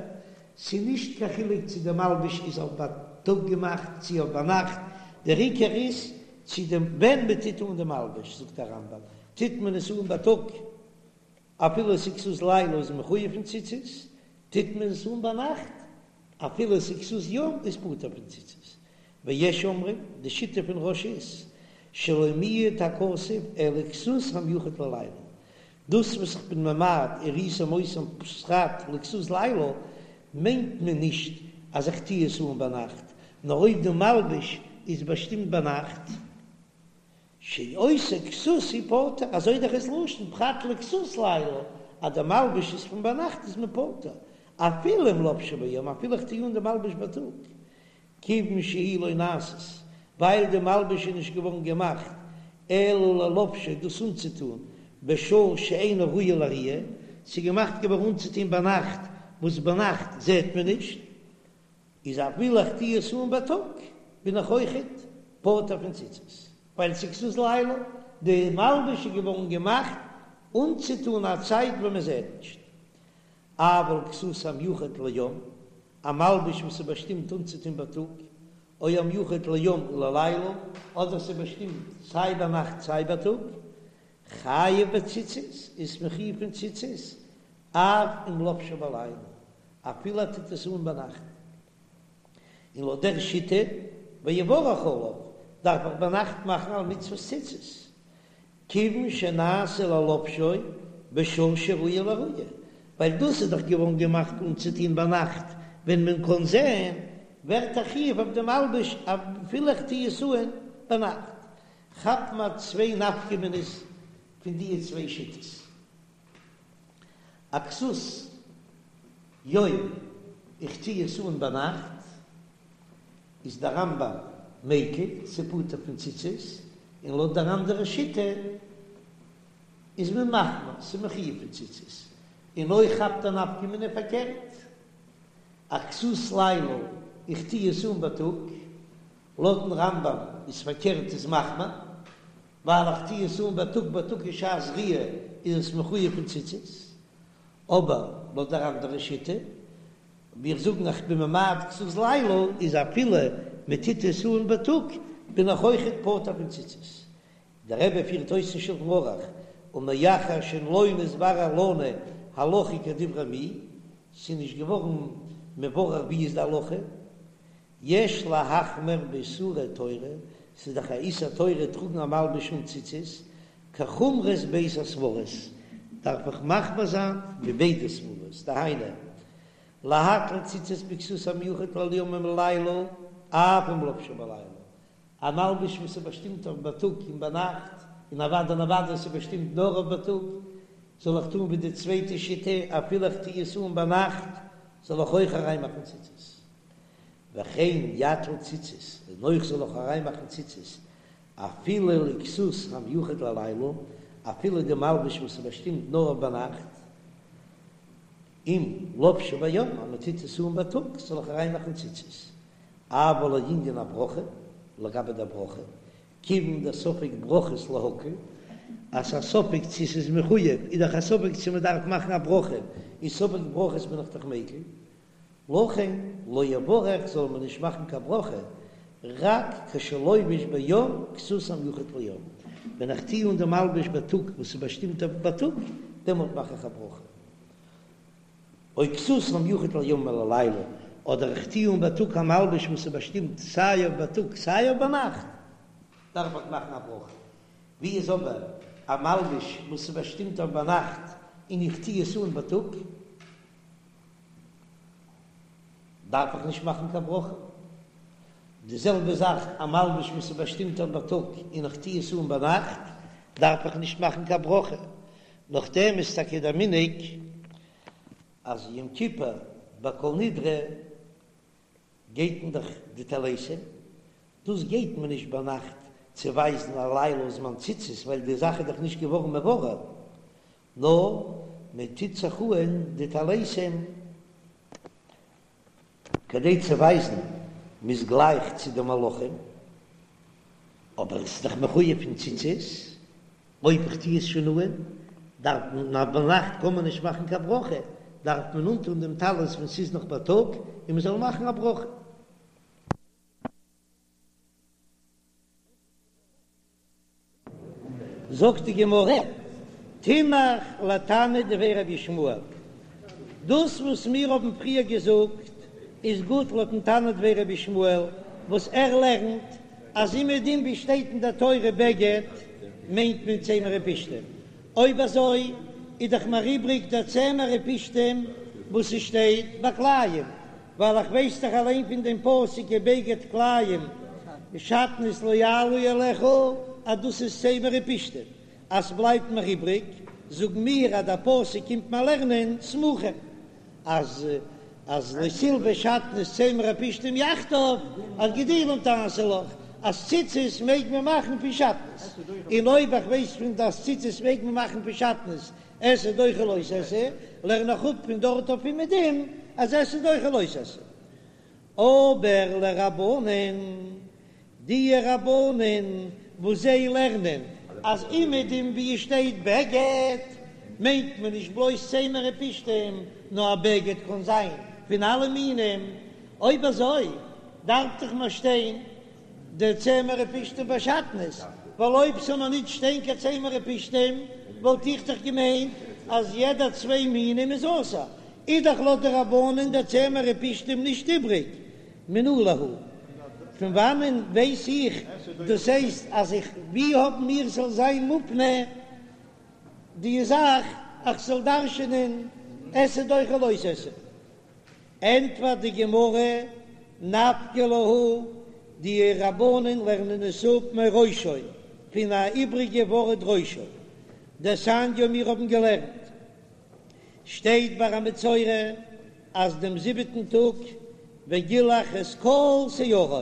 ס'איז נישט קיין חילוק צו די מלבוש איז אויף בייטאג געמאכט צו אויף ביינאכט, דער עיקר איז צו דעם ווען מען טוט אן די מלבוש, זאגט דער רמב"ם, טוט מען עס אן בייטאג אפילו עס איז כסות לילה איז מחויב פון ציצית, טוט מען עס אן ביינאכט אפילו עס איז כסות יום איז פטור פון ציצית. ויש אומרים, די שיטה פון רא"ש איז, שלא מיעט הכתוב אלא כסות המיוחד ללילה. דאס וואס איך בין ממעט וראיתם אותם פרט לכסות לילה, מיינט מען נישט אז איך טוה עס אן ביינאכט, נאר אויב די מלבוש איז באשטימט ביינאכט, שאותה כסות הוא פטור, אזוי דאך איז לשון פרט לכסות לילה, אז די מלבוש איז פון ביינאכט איז מען פטור, אפילו אם לובשו ביום, אפילו איך טוה אן די מלבוש בייטאג, כיוון שהיא לא נעשית, ווייל די מלבוש איז נישט געווארן געמאכט אלא ללובשו דאס אנצוטון בשעה שאינה ראויה לראיה, ס'איז געמאכט געווארן אנצוטון ביינאכט וואס ביינאכט זעט מען נישט, איז אפילו איך טוה עס אן בייטאג בין איך אויכעט פטור פון ציצית, ווייל ס'איז כסות לילה, די מלבוש איז געווארן געמאכט אנצוטון א צייט ווען מען זעט נישט. אבל כסות המיוחד ליום, א מלבוש וואס איז באשטימט אנצוטון בייטאג, או המיוחד ליום וללילה, אדער ס'איז באשטימט סיי ביינאכט סיי בייטאג, חייב בציצית, איז מחויב פון ציצית, אף אם לבשו בלילה, אפילו ער טוט עס אן ביינאכט. און לויט דער שיטה, ויברך עליו, דארף איך ביינאכט מאכן על מצוות ציצית, כיוון שנעשה ללובשו בשעה שראויה לראיה, ווייל דאס איז דאך געווארן געמאכט אנצוטון ביינאכט ווען מען קען זען, ווערט א חיוב אויף דעם מלבוש אפילו איך טו עס אן ביינאכט. כאפט מען צוויי נפקא מינה'ס. פון די צוויי שיטות. א כסות יום איך טוה עס אן ביינאכט, איז דער רמב"ם מיקל, ס'פטור פון ציצית, און לויט דער אנדערע שיטה איז מען מחמיר, ס'מחויב פון ציצית, און אויך כאפט א נפקא מינה פארקערט, א כסות לילה איך טוה עס אן בייטאג, לויטן רמב"ם איז פארקערט איז מחמיר, ווייל איך טוה עס אן בייטאג בייטאג איז שעת ראיה איז עס מחויב פון ציצית, אבער לויט דער אנדערע שיטה ווי איך זאגן איך בין ממעט כסות לילה איז אפילו מען טוט עס אן בייטאג בין איך אויכעט פטור פון ציצית. דער רבי פירט אויס אין שלחן ערוך ומאחר שלא נתברר לנו הלכה כדברי מי, ס'איז נישט געווארן מבורר ווי איז די הלכה, יש להחמיר באיסורי תורה, ס'איז דאך א איסור תורה טראגן א מלבוש אן ציצית, כחומרות ב' הסברות, דארף איך מחמיר זיין ווי ביידע סברות, דהיינו, להטיל ציצית בכסות המיוחד ליום וללילה, אף אם לבשו בלילה, א מלבוש וואס איז באשטימט אויף בייטאג און ביינאכט, און אוודאי און אוודאי עס איז באשטימט נאר אויף בייטאג, זאל איך טון ווי די צווייטע שיטה, אפילו איך טו עס אן ביינאכט, זאל איך אויך אריינמאכן ציצית. וכן יטיל ציצית, און אויך זאל איך אריינמאכן ציצית, אפילו לכסות המיוחד ללילה, אפילו די מלבוש וואס איז באשטימט נאר אויף ביינאכט, אם לבשו ביום, אז מען טוט עס אן בייטאג, זאל איך אריינמאכן ציצית. אבל לענין הברכה, לגבי דער ברכה, כיוון דספק ברכות להקל, אז ס'איז א ספק צו ס'איז מחויב, איז דאך א ספק צו מ'דארף מאכן א ברכה, איז ספק ברכות בין איך דאך מיקל, לכן לא יברך זאל מען נישט מאכן קיין ברכה, רק כשלובש ביום כסות המיוחד ליום, ווען איך טוה אן די מלבוש בייטאג וואס איז באשטימט אויף בייטאג, דעמאלט מאך איך א ברכה. או כסות המיוחד ליום וללילה, אדער איך טוה אן בייטאג א מלבוש וואס איז באשטימט סיי אויף בייטאג סיי אויף ביינאכט, דארף איך מאכן א ברכה. ווי איז אבער א מלבוש וואס איז באשטימט אויף ביינאכט און איך טוה עס אן בייטאג, דארף איך נישט מאכן קיין ברכה. די זעלבע זאך א מלבוש וואס איז באשטימט אויף בייטאג און איך טוה עס אן ביינאכט, דארף איך נישט מאכן קיין ברכה. נאכדעם איז טאקע דער מנהג אז יום כיפור ביי כל נדרי גייט מען דאך די טליתים, דאס גייט מען נישט ביינאכט צו ווייזן א לילה זמן ציצית ווייל די זאך איז דאך נישט געווארן מבורר, נאר מען טוט זיך אהן די טליתים כדי צו ווייזן מ'איז גלייך צו די מלאכים, אבער עס איז דאך מחויב פון ציצית, אויב איך טו עס שוין אהן, דארף מען, אז ביינאכט קען מען נישט מאכן קיין ברכה, דארף מען אנטון דעם טלית ווען ס'איז נאך בייטאג, און מ'זאל מאכן א ברכה. זאגט די גמרא, תינח לתנא דבי רבי ישמעאל, דאס וואס מיר האבן פריער געזאגט איז גוט לויטן תנא דבי רבי ישמעאל, וואס ער לערנט אז אומעדום ווי שטייט אין דער תורה בגד מיינט מען צמר ופשתים, אויב אזוי איז דאך מיר איבריג דער צמר ופשתים וואס עס שטייט ביי כלאים, ווייל איך ווייס דאך אליין פון דעם פסוק ובגד כלאים שעטנז לא יעלו עליך אז דאס איז צמר ופשתים, אז ס'בלייבט מיר איבריג, זאגן מיר אז דער פסוק קומט מיר לערנען סמוכים אז אז לא תלבש שעטנז צמר ופשתים יחדיו אז גדילים תעשה לך אז ציצית מעג מען מאכן פון שעטנז, און אויב איך ווייס פון אז ציצית מעג מען מאכן פון שעטנז עשה דוחה לא תעשה, לערן איך אפ פון דארט אויף אומעדום אז עשה דוחה לא תעשה. אבער לרבנן, די רבנן וואס זיי לערנען אז אומעדום ווי עס שטייט בגד מיינט מען נישט בלויז צמר ופשתים, נאר א בגד קען זיין פון אלע מינים, אויב אזוי דארף דאך מיר שטיין די צמר ופשתים ביי שעטנז, ווייל אויב ס'זאל מיר ניט שטיין קיין צמר ופשתים וואלט איך דאך געמיינט אז יעדע צוויי מינים איז אסור, איז דאך לויט די רבנן דער צמר ופשתים נישט איבריג, מנא להו. פון וואנען ווייס איך דאס הייסט אז איך ווי האבן מיר ס'זאל זיין מופנה די זאך איך זאל דרש'ענען עשה דוחה לא תעשה? ענטפערט די גמרא, נפקא להו, די רבנן לערנען עס אפ מראשו, פון א איבריגע ווארט ראשו. דתניא מיר האבן געלערנט שטייט ביי א מצורע אז דעם זיבעטן טאג וגילח את כל שערו,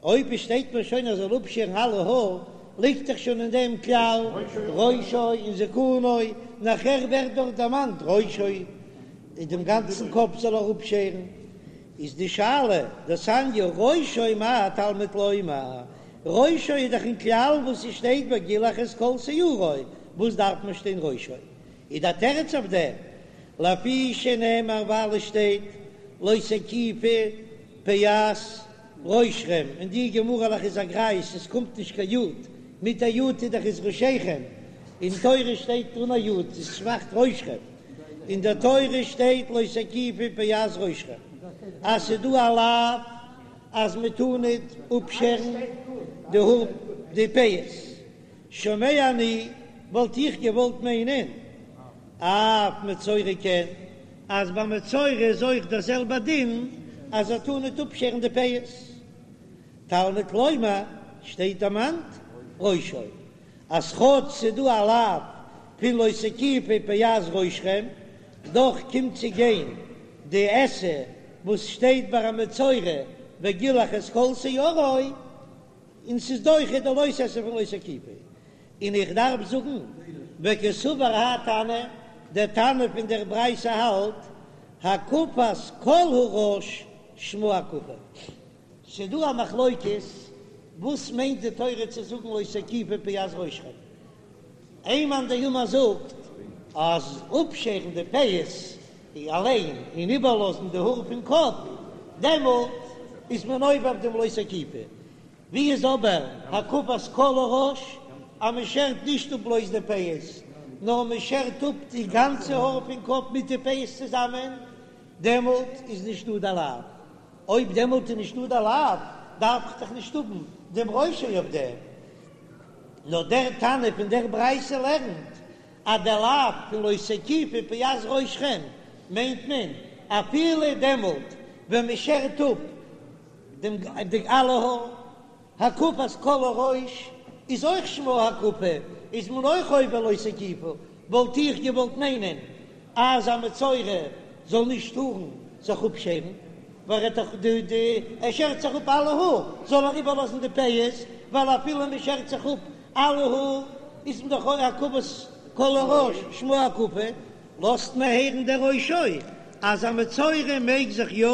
אויב עס שטייט מיר שוין אז ער זאל אפשערן אלע האר, ליגט דאך שוין אין דעם כלל ראשו און זקנו, נאכער ווערט דארט דערמאנט ראשו, דעם גאנצן קאפ זאל ער אפשערן, איז די שאלה, דתניא ראשו מה תלמוד לומר, ראשו איז דאך אין כלל וואס עס שטייט וגילח את כל שערו, וואס דארף מען שטיין ראשו? איז דער תירוץ אויף דעם, לפי שנאמר ווייל עס שטייט לא תקיפו פאת ראשכם, אין די גמרא'לעך איז א גרייז, עס קומט נישט קיין יוד, מיט א יוד איז דאך איז ראשיכם, אין תורה שטייט אן א יוד, עס מאכט ראשכם, אין דער תורה שטייט לא תקיפו פאת ראשכם, אז ס'איז דא א לאו אז מען טאר ניט אפשערן די האר די פאות, שומע אני, וואלט איך געוואלט מיינען אף מצורע כן, אז ביי מצורע איז אויך דער זעלבער דין אז ער טאר ניט אפשערן די פאות. תלמוד לומר, שטייט דערמאנט ראשו, אז כאטש ס'איז דא א לאו פון לא תקיפו פאת ראשכם, דאך קומט צו גיין די עשה וואס שטייט ביי א מצורע וגילח את כל שערו, און ס'איז דוחה די לא תעשה פון לא תקיפו, און איך דארף זאגן וקסבר האי תנא, דער תנא פון דער ברייתא האלט הקפת כל הראש שמה הקפה. ס'איז דא א מחלוקת וואס מיינט די תורה צו זאגן לא תקיפו פאת ראשכם, איין מאן דאמר זאגט אז אפשערן די פאות אליין און איבערלאזן די האר פון קאפ, דעמאלט איז מען עובר אויף דעם לא תקיפו. ווי איז אבער הקפת כל הראש אז מען שערט נישט אפ בלויז די פאות, נאר מען שערט אפ די גאנצע האר פון קאפ מיט די פאות צוזאמען, דעמאלט איז נישט דא די לאו. אויב דעמאלט איז נישט דא די לאו, דארף איך דאך נישט האבן דעם ראשו אויף דעם. נאר דער תנא פון דער ברייתא לערנט אז דער לאו פון לא תקיפו פאת ראשכם מיינט מען אפילו דעמאלט ווען מען שערט אפ דעם די אלע האר, הקפת כל הראש איז אויך שמה הקפה, איז מען אויך עובר לא תקיפו, וואלט איך געוואלט מיינען אז א מצורע זאל נישט טארן זיך אפשערן, ווייל ער האט דאך די די ער שערט זיך אפ אלע האר, זאל ער איבערלאזן די פאות, ווייל אפילו מען שערט זיך אפ אלע האר איז מען דאך אויך הקפת כל הראש שמה הקפה, לאזט מען הערן דער ראשו אז א מצורע מעג זיך יא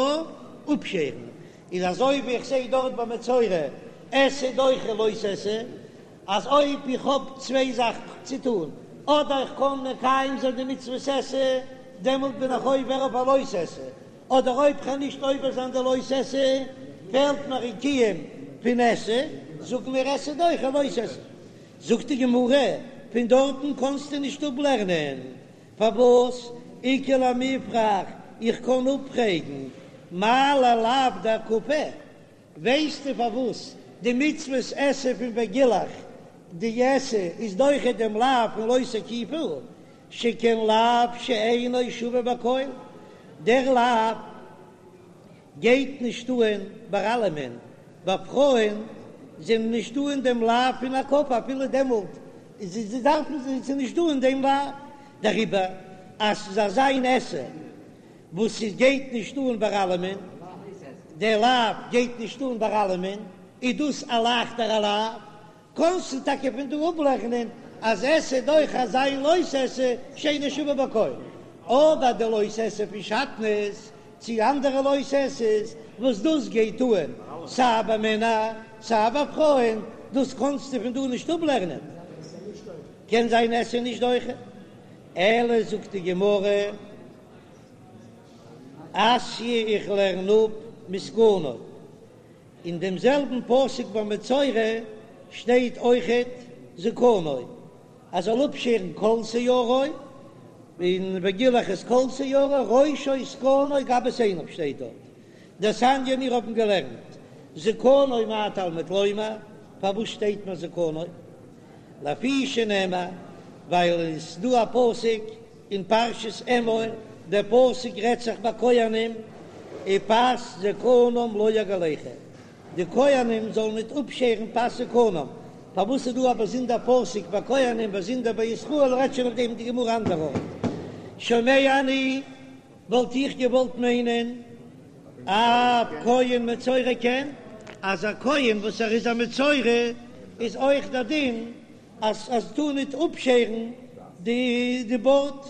אפשערן, איז אזוי ווי איך זעה דארט ביי מצורע עשה דוחה לא תעשה, אז אויב איך האב צוויי זאכן צו טון, אדער איך קען מקיים זיין די מצוות עשה, דעמאלט בין איך עובר אויף א לא תעשה, אדער אויב כ'קען נישט עובר זיין די לא תעשה, פעלט מיר אין קיום פון עשה, זאגן מיר עשה דוחה לא תעשה. זאגט די גמרא, פון דארטן קענסטו נישט אפלערנען, פארוואס איכא למיפרך, איך קען אפפרעגן מה ללאו דהקפה, ווייסטו פארוואס די מצוות עשה פון וגילח די עשה איז דוחה דעם לאו פון לא תקיפו, שכן לאו שאינו שווה בכל, דער לאו גייט נישט אהן ביי אלעמען, ביי פרויען זענען נישט דא אין דעם לאו פון הקפה אפילו דעמאלט זיי דארפן זיי נישט דא אין דעם לאו, דעריבער אז ס'איז אזא איין עשה וואס ס'גייט נישט אן ביי אלעמען, דער לאו גייט נישט אן ביי אלעמען, איז דאס א לייכטערע לאו, קענסטו טאקע פון דא אפלערנען אז עשה דוחה אזא איין לא תעשה שאינו שווה בכל, אבער די לא תעשה פון שעטנז צו אנדערע לא תעשה'ס וואס דאס גייט אן סיי ביי מענער סיי ביי פרויען, דאס קענסטו פון דא נישט אפלערנען, קען זיין עשה נישט דוחה, אלא זאגט די גמרא אתיא איך לערן אפ מזקנו. אין דעם זעלבן פסוק ביי מצורע שטייט אויכעט זקנו אז זאל אפשערן כל שערו, און וגילח את כל שערו, ראשו זקנו גבות עיניו שטייט דארט. דתניא מיר האבן געלערנט זקנו מה תלמוד לומר, פארוואס שטייט מיר זקנו? לפי שנאמר, ווייל עס איז דא א פסוק אין פרשת אמור, דער פסוק רעדט זיך ביי כהנים, ופאת זקנם לא יגלחו, די כהנים זאלן ניט אפשערן פאת זקנם. פארוואס איז דא א באזונדער פסוק ביי כהנים באזונדער ביי ישראל, רעדט שוין אויף דעם די גמרא אנדער ארט. שומע אני, וואלט איך געוואלט מיינען אף כהן מצורע כן, אז א כהן וואס ער איז א מצורע איז אויך דער דין אז אז טאר ניט אפשערן די די בארד.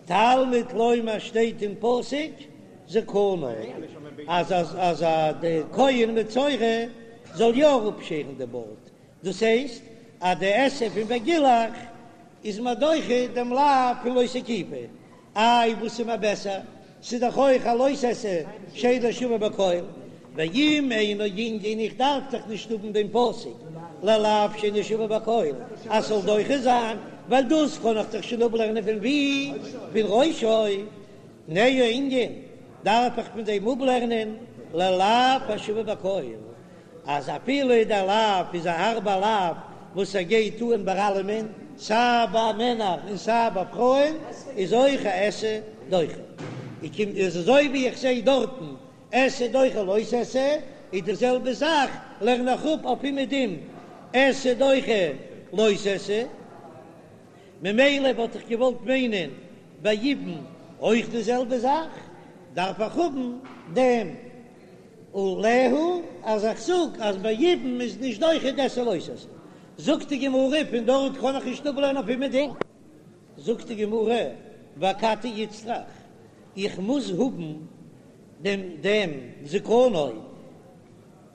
תלמוד לומר שטייט אין פסוק זקנו אז אז אז די כהן מצורע זאל יא אפשערן די בארד, דאס הייסט אז די עשה פון וגילח איז מיר דוחה דעם לאו פון לא תקיפו, איי וואס איז מיר בעסער, ס'איז דאך אויך א לא תעשה שאינו שווה בכל, ואם אינו ענין איך דארף דאך נישט האבן דעם פסוק ללאו שאינו שווה בכל אז ס'זאל דוחה זיין, ווייל דאס קען איך דאך שוין אפלערנען פון ווי? פון ראשו, תנהו ענין דארף איך פון דעם אפלערנען ללאו השווה בכל. אז אפילו דער לאו איז א הארבע לאו וואס ער גייט אן ביי אלעמען, סיי ביי מענער און סיי ביי פרויען, איז אויך א עשה דוחה. איך קום איז אזוי ווי איך זעה דארטן עשה דוחה לא תעשה, איז די זעלבע זאך לערן איך אפ אויף אומעדום עשה דוחה לא תעשה. ממילא וואלט איך געוואלט מיינען ביי יבום אויך די זעלבע זאך, דארף איך האבן דעם עליה אז איך זאג אז ביי יבום איז נישט דוחה די עשה לא תעשה. זאגט די גמרא פון דארט קען איך נישט אפלערנען אויף אומעדום. זאגט די גמרא ואכתי איצטריך, איך מוז האבן דעם דעם זקנו.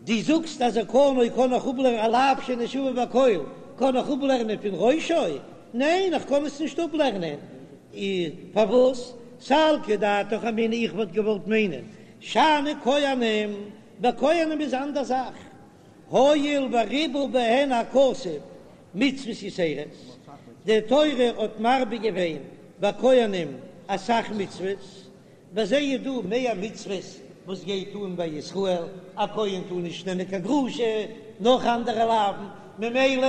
דו זאגסט אז זקנו קען איך אפלערנען א לאו שאינו שווה בכל קען איך אפלערנען פון ראשו? ניין איך קען עס נישט אפלערנען. פארוואס? סלקא דעתך אמינא איך וואלט געוואלט מיינען שאני כהנים, ביי כהנים איז אנדער זאך, הואיל וריבה בהן הכתוב מצוות יתירות, די תורה האט מרבה געווען ביי כהנים אסאך מצוות, ביי זיי איז דא מער מצוות וואס גייט אן ביי ישראל, א כהן טאר נישט נעמען קיין גרושה, נאך אנדערע לאווין, ממילא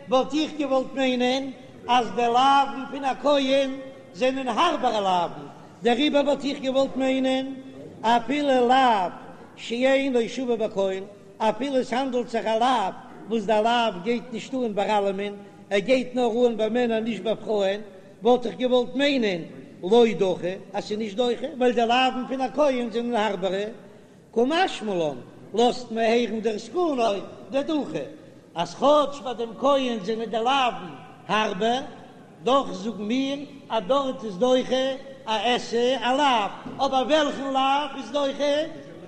וואלט איך געוואלט מיינען אז די לאווין פון א כהן זענען הארבערע לאווין, דעריבער וואלט איך געוואלט מיינען אפילו לאו שאינו שווה בכל, אפילו עס האנדלט זיך א לאו וואס די לאו גייט נישט אן ביי אלעמען, ער גייט נאר אן ביי מענער נישט ביי פרויען, וואלט איך געוואלט מיינען לא דחי אז ס'איז נישט דוחה ווייל די לאווין פון א כהן זענען הארבערע, קא משמע לן לאזט מען הערן דער זקנו דדחי אז כאטש ביי דעם כהן זענען די לאווין הארבער, דאך זאגן מיר אז דארט איז דוחה א עשה א לאו, אבער וועלכן לאו איז דוחה?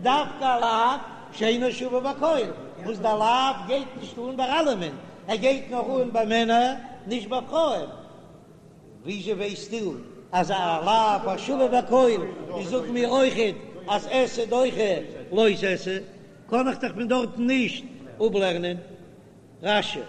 דווקא א לאו שאינו שווה בכל, וואס דער לאו גייט נישט אן ביי אלעמען, ער גייט נאר אן ביי מענער נישט ביי פרויען. וויאזוי ווייסטו אז א לאו השווה בכל איז זאגן מיר אויכעט אז עשה דוחה לא תעשה, קען איך דאך פון דארטן נישט אפלערנען. רש"י.